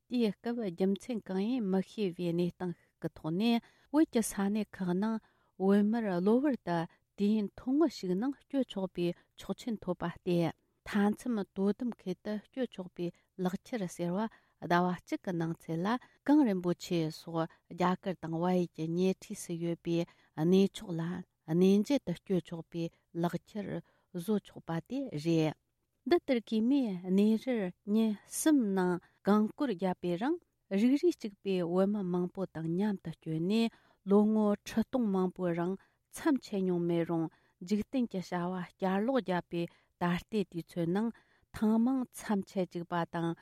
དེའི་སྐབས་རྒྱུ་མཚན་གང་ཡིན་མི་ཤེས་པའི་གནས་སྟངས་ཤིག་གི་ཐོག་ནས། བོད་ཀྱི་ས་གནས་ཁག་ནང་བོད་མིར་གློ་བུར་དུ་དུས་ཡུན་ཐུང་ངུ་ཞིག་ནང་སྐྱོད་ཆོག་པའི་ཆོག་མཆན་ཐོབ་པ་སྟེ། མཐའ་མཚམས་དོ་དམ་ཁུལ་དུ་སྐྱོད་ཆོག་པའི་ལག་ཁྱེར་ཟེར་བ་ཟླ་བ་གཅིག་གི་ནང་ཚུད་ལ། གངས་རིན་པོ་ཆེ་སོགས་རྒྱ་གར་དང་བལ་ཡུལ་གྱི་ཉེ་འཁྲིས་སུ་ཡོད་པའི་གནས་མཆོག་ལ་གནས་མཇལ་དུ་སྐྱོད་ཆོག་པའི་ལག་ཁྱེར་བཟོ་ཆོག་པ་དེ་རེད། འདི་ལྟར་གིས་མོས་གནས་རིར་ཉིན་གསུམ་ནང་གངས་སྐོར་བརྒྱབ་པའི་རིང་། རིགས་རུས་གཅིག་པའི་བོད་མི་མང་པོ་དང་མཉམ་དུ་བསྐྱོད་ནས། ལོ་ངོ་ཁྲི་སྟོང་མང་པོའི་རིང་མཚམས་ཆད་མྱོང་མེད་རུང་། འཇིག་རྟེན་གྱི་བྱ་བ་བསྐྱར་ལོག་བརྒྱབ་པའི་ད་ལྟའི་དུས་ཚོད་ནང་ཐེངས་མང་མཚམས་ཆད་བཅུག་པ་དང་།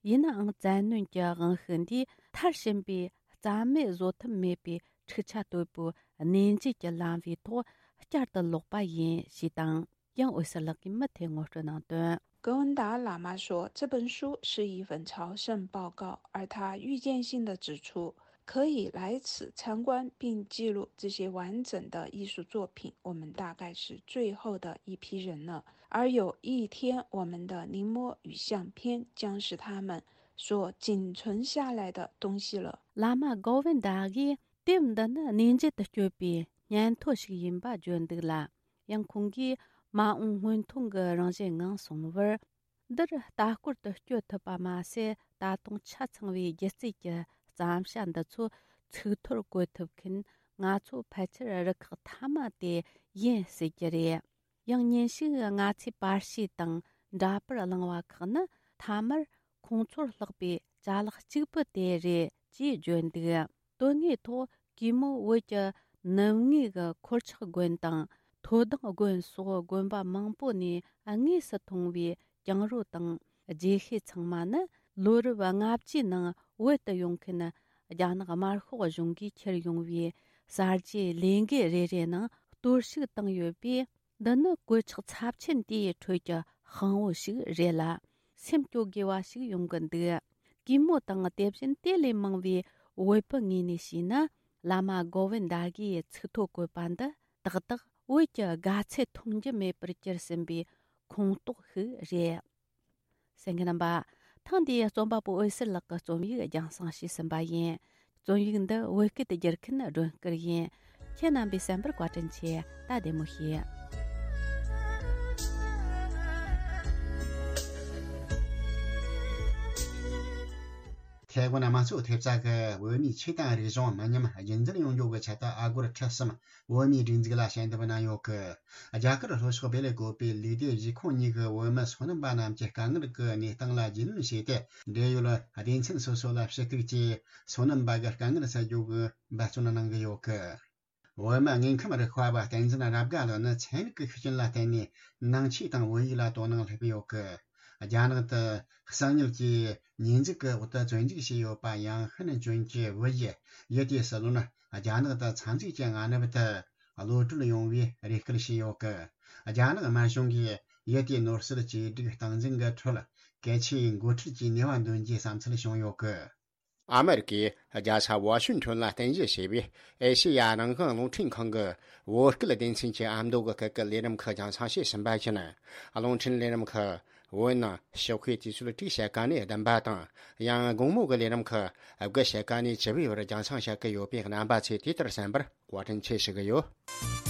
ཡིན་ནའང་བཙན་གནོན་གྱི་དབང་ཤུགས་འདིས་མཐར་ཕྱིན་པའི་རྩ་མེད་བཟོ་ཐབས་མེད་པའི་འཁྲུག་ཆ་དོད་པོའི་གནས་མཇལ་གྱི་ལམ་བུའི་ཐོག་བསྐྱར་དུ་ལོག་པ་ཡིན་ཞེས་དང་། ཡང་འོད་ཟེར་ལགས་ཀྱིས་མུ་མཐུད་ངོ་སྤྲོད་གནང་དོན། 格温达喇嘛说，这本书是一份朝圣报告，而他预见性地指出，可以来此参观并记录这些完整的艺术作品，我们大概是最后的一批人了。而有一天，我们的临摹与相片将是他们所仅存下来的东西了。 བླ་མ་གོ་བིན་དཱ་གིས་དེབ་འདི་ནི་གནས་མཇལ་དུ་བསྐྱོད་པའི་སྙན་ཐོ་ཞིག་ཡིན་པ་བརྗོད་འདུག་ལ། ཡང་ཁོང་གིས་མ་འོངས་སྔོན་ཐོན་གྱི་རང་བཞིན་ངང་སོང་བར། འདིར་ལྟ་སྐོར་དུ་བསྐྱོད་ཐུབ་པ་མ་ཟད། ད་དུང་ཆ་ཚང་བའི་སྒྱུ་རྩལ་གྱི་བརྩམས་བྱ་འདི་ཚོ་ཚིག་ཐོར་བཀོད་ཐུབ་མཁན། ང་ཚོ་ཕལ་ཆེར་རུ་ཁག་མཐའ་མ་དེ་ཡིན་སྲིད་ཀྱི་རེད། ཡང་ཉིན་ཞིག་ང་ཚོས་པར་ཤེས་དང་འདྲ་པར་བླངས་པ་ཁག་ནི་མཐའ་མར་ཁོང་ཚོར་ལྷག་པའི་ཅ་ལག་གཅིག་པུ་དེ་རེད་ཅེས་བརྗོད་འདུག། དོན་དངོས་ཐོག་གུས་མོ་བོད་ཀྱི་ནུབ་ངོས་ཀྱི་འཁོར་ཆགས་དགོན་དང་མཐོ་ལྡིང་དགོན་སོགས་དགོན་པ་མང་པོ་ནས་དངོས་སུ་མཐོང་བའི་གྱང་རོ་དང་རྗེས་ཤུལ་ཚང་མ་ནི་ལོ་རབས་ལྔ་བཅུའི་ནང་བོད་དུ་ཡོང་མཁན་རྒྱ་ནག་དམར་ཤོག་གཞུང་གིས་ཁྱེར་ཡོང་བའི་གསར་བརྗེའི་ལས་འགུལ་རེ་རེའི་ནང་གཏོར་བཤིག་བཏང་ཡོད་པས། འདི་ནི་གོད་ཆག་ཚབས་ཆེན་དེའི་ཁྲོད་ཀྱི་དཔང་བོ་ཞིག་རེད་ལ། སེམས་སྐྱོ་དགོས་པ་ཞིག་ཡོང་གི་འདུག། གུས་མོ་དང་དེ་བཞིན་དེ་ལས་མང་བའི་བོད་པའི་ངོས་ནས་བཤད་ན། བླ་མ་གོ་བིན་དཱ་གིས་ཚིག་ཐོ་བཀོད་པ་འདི་ཏག་ཏག་བོད་ཀྱི་དགའ་ཚལ་མཐོང་རྒྱུ་མེད་པར་གྱུར་ཟིན་པའི་ཁོངས་གཏོགས་ཤིག་རེད། གསན་མཁན་རྣམ་པ། ཐེངས་འདིའི་རྩོམ་པ་པོ་འོད་ཟེར་ལགས་ཀྱི་རྩོམ་ཡིག་རྒྱང་སྲིང་ཞུས་ཟིན་པ་ཡིན། རྩོམ་ཡིག་འདི་བོད་སྐད་དུ་བསྒྱུར་མཁན་སྒྲོན་སྐུར་ཡིན། ཁྱེད་རྣམ་པས་གསན་པར་བཀའ་དྲིན་ཆེ། ད་བདེ་མོ་བྱོས། ཐའེ་ཝན་དམངས་གཙོ་ཐེབས་རྩ་གིས་བོད་མིའི་ཆོས་དང་རིག་གཞུང་མི་ཉམས་རྒྱུན་འཛིན་ཡོང་རྒྱུ་གི་ཆེད་དུ་ཨ་སྒོར་ཁྲི་གསུམ་བོད་མིའི་སྒྲིག་འཛུགས་ལ་ཞལ་འདེབས་གནང་ཡོད་གི། རྒྱ་གར་ལྷོ་ཕྱོགས་བེ་ལེ་ཀོ་པའི་ལུས་བདེ་གཞིས་ཁོངས་གཉིས་ཀྱི་བོད་མི་སོ་ནམ་པ་རྣམས་ཀྱི་དཀའ་ངལ་གྱི་གནས་སྟངས་ལ་རྒྱུས་ལོན་བྱས་ཏེ། འབྲེལ་ཡོད་སྡེ་ཚན་སོ་སོ་ལ་ཞུ་གཏུག་བྱས། སོ་ནམ་པ་གི་དཀའ་ངལ་སེལ་རྒྱུ་གི་འབད་བརྩོན་གནང་གི་ཡོད་གི། བོད་མི་དངོས་ཁམས་རིག་པ་བ་བསྟན་འཛིན་རབ་དགའ་ལགས་ནི་ཚན་རིག་གི་ཤུགས་རྐྱེན་ལ་བརྟེན་ནས་ནང་ཆོས་དང་བོད་ཡིག་ལ་དོ་སྣང་སླེབས་ཡོད་གི། རྒྱ་ནག་ཏུ་གསང་ཉུལ་གྱི་ཉེས་འཛུགས་ཀྱི་འོག་ཏུ་བཙོན་འཇུག་བྱས་ཡོད་པ་ཡང་ཧན་ཅུན་གྱི་བུ་ཡི་ཡུ་ཏེ་སི་ལོན་རྒྱ་ནག་ཏུ་ཚབ་མཛེས་ཀྱི་མངའ་ནུབ་ཏུ་གློད་གྲོལ་ཡོང་བའི་རེ་སྐུལ་བྱས་ཡོད་གི། རྒྱ་ནག་དམར་གཞུང་གིས་ཡུ་ཏེ་ནོར་སྲིད་བཅོས་སྒྲིག་སྟངས་འཛིན་གྱི་ཁྲོད་གལ་ཆེའི་འགོ་ཁྲིད་ཀྱི་ནུས་པ་འདོན་རྒྱུའི་བསམ་ཚུལ་བྱུང་ཡོད་གི། ཨ་མེ་རི་ཀའི་རྒྱལ་ས་ཝ་ཤིང་ཊོན་ལ་རྟེན་གཞི་བྱས་པའི་ཨེ་ཤེ་ཡ་རང་དབང་རླུང་འཕྲིན་ཁང་གི་བོད་སྐད་སྡེ་ཚན་གྱི་ཨ་མདོ་གི་སྐད་ཀྱི་ལས་རིམ་ཁག་རྒྱང་སྲིང་བྱས་ཟིན་པ་བཞིན། རླུང་འཕྲིན་ལས་རིམ་ཁག་བོད་ནང་ཞོགས་ཀའི་དུས་ཚོད་དྲུག་ཕྱེད་ཀ་ནས་བདུན་པ་དང་། ཡང་དགོང་མོ་གི་ལས་རིམ་ཁག་དགུ་ཕྱེད་ཀ་ནས་བཅུ་པའི་བར་རྒྱང་སྲིང་བྱེད་ཀྱི་ཡོད་པས། རྣམ་པ་ཚོས་དེ་ལྟར་གསན་པར་བཀའ་དྲིན་ཆེ་ཞུ་གི་ཡོད།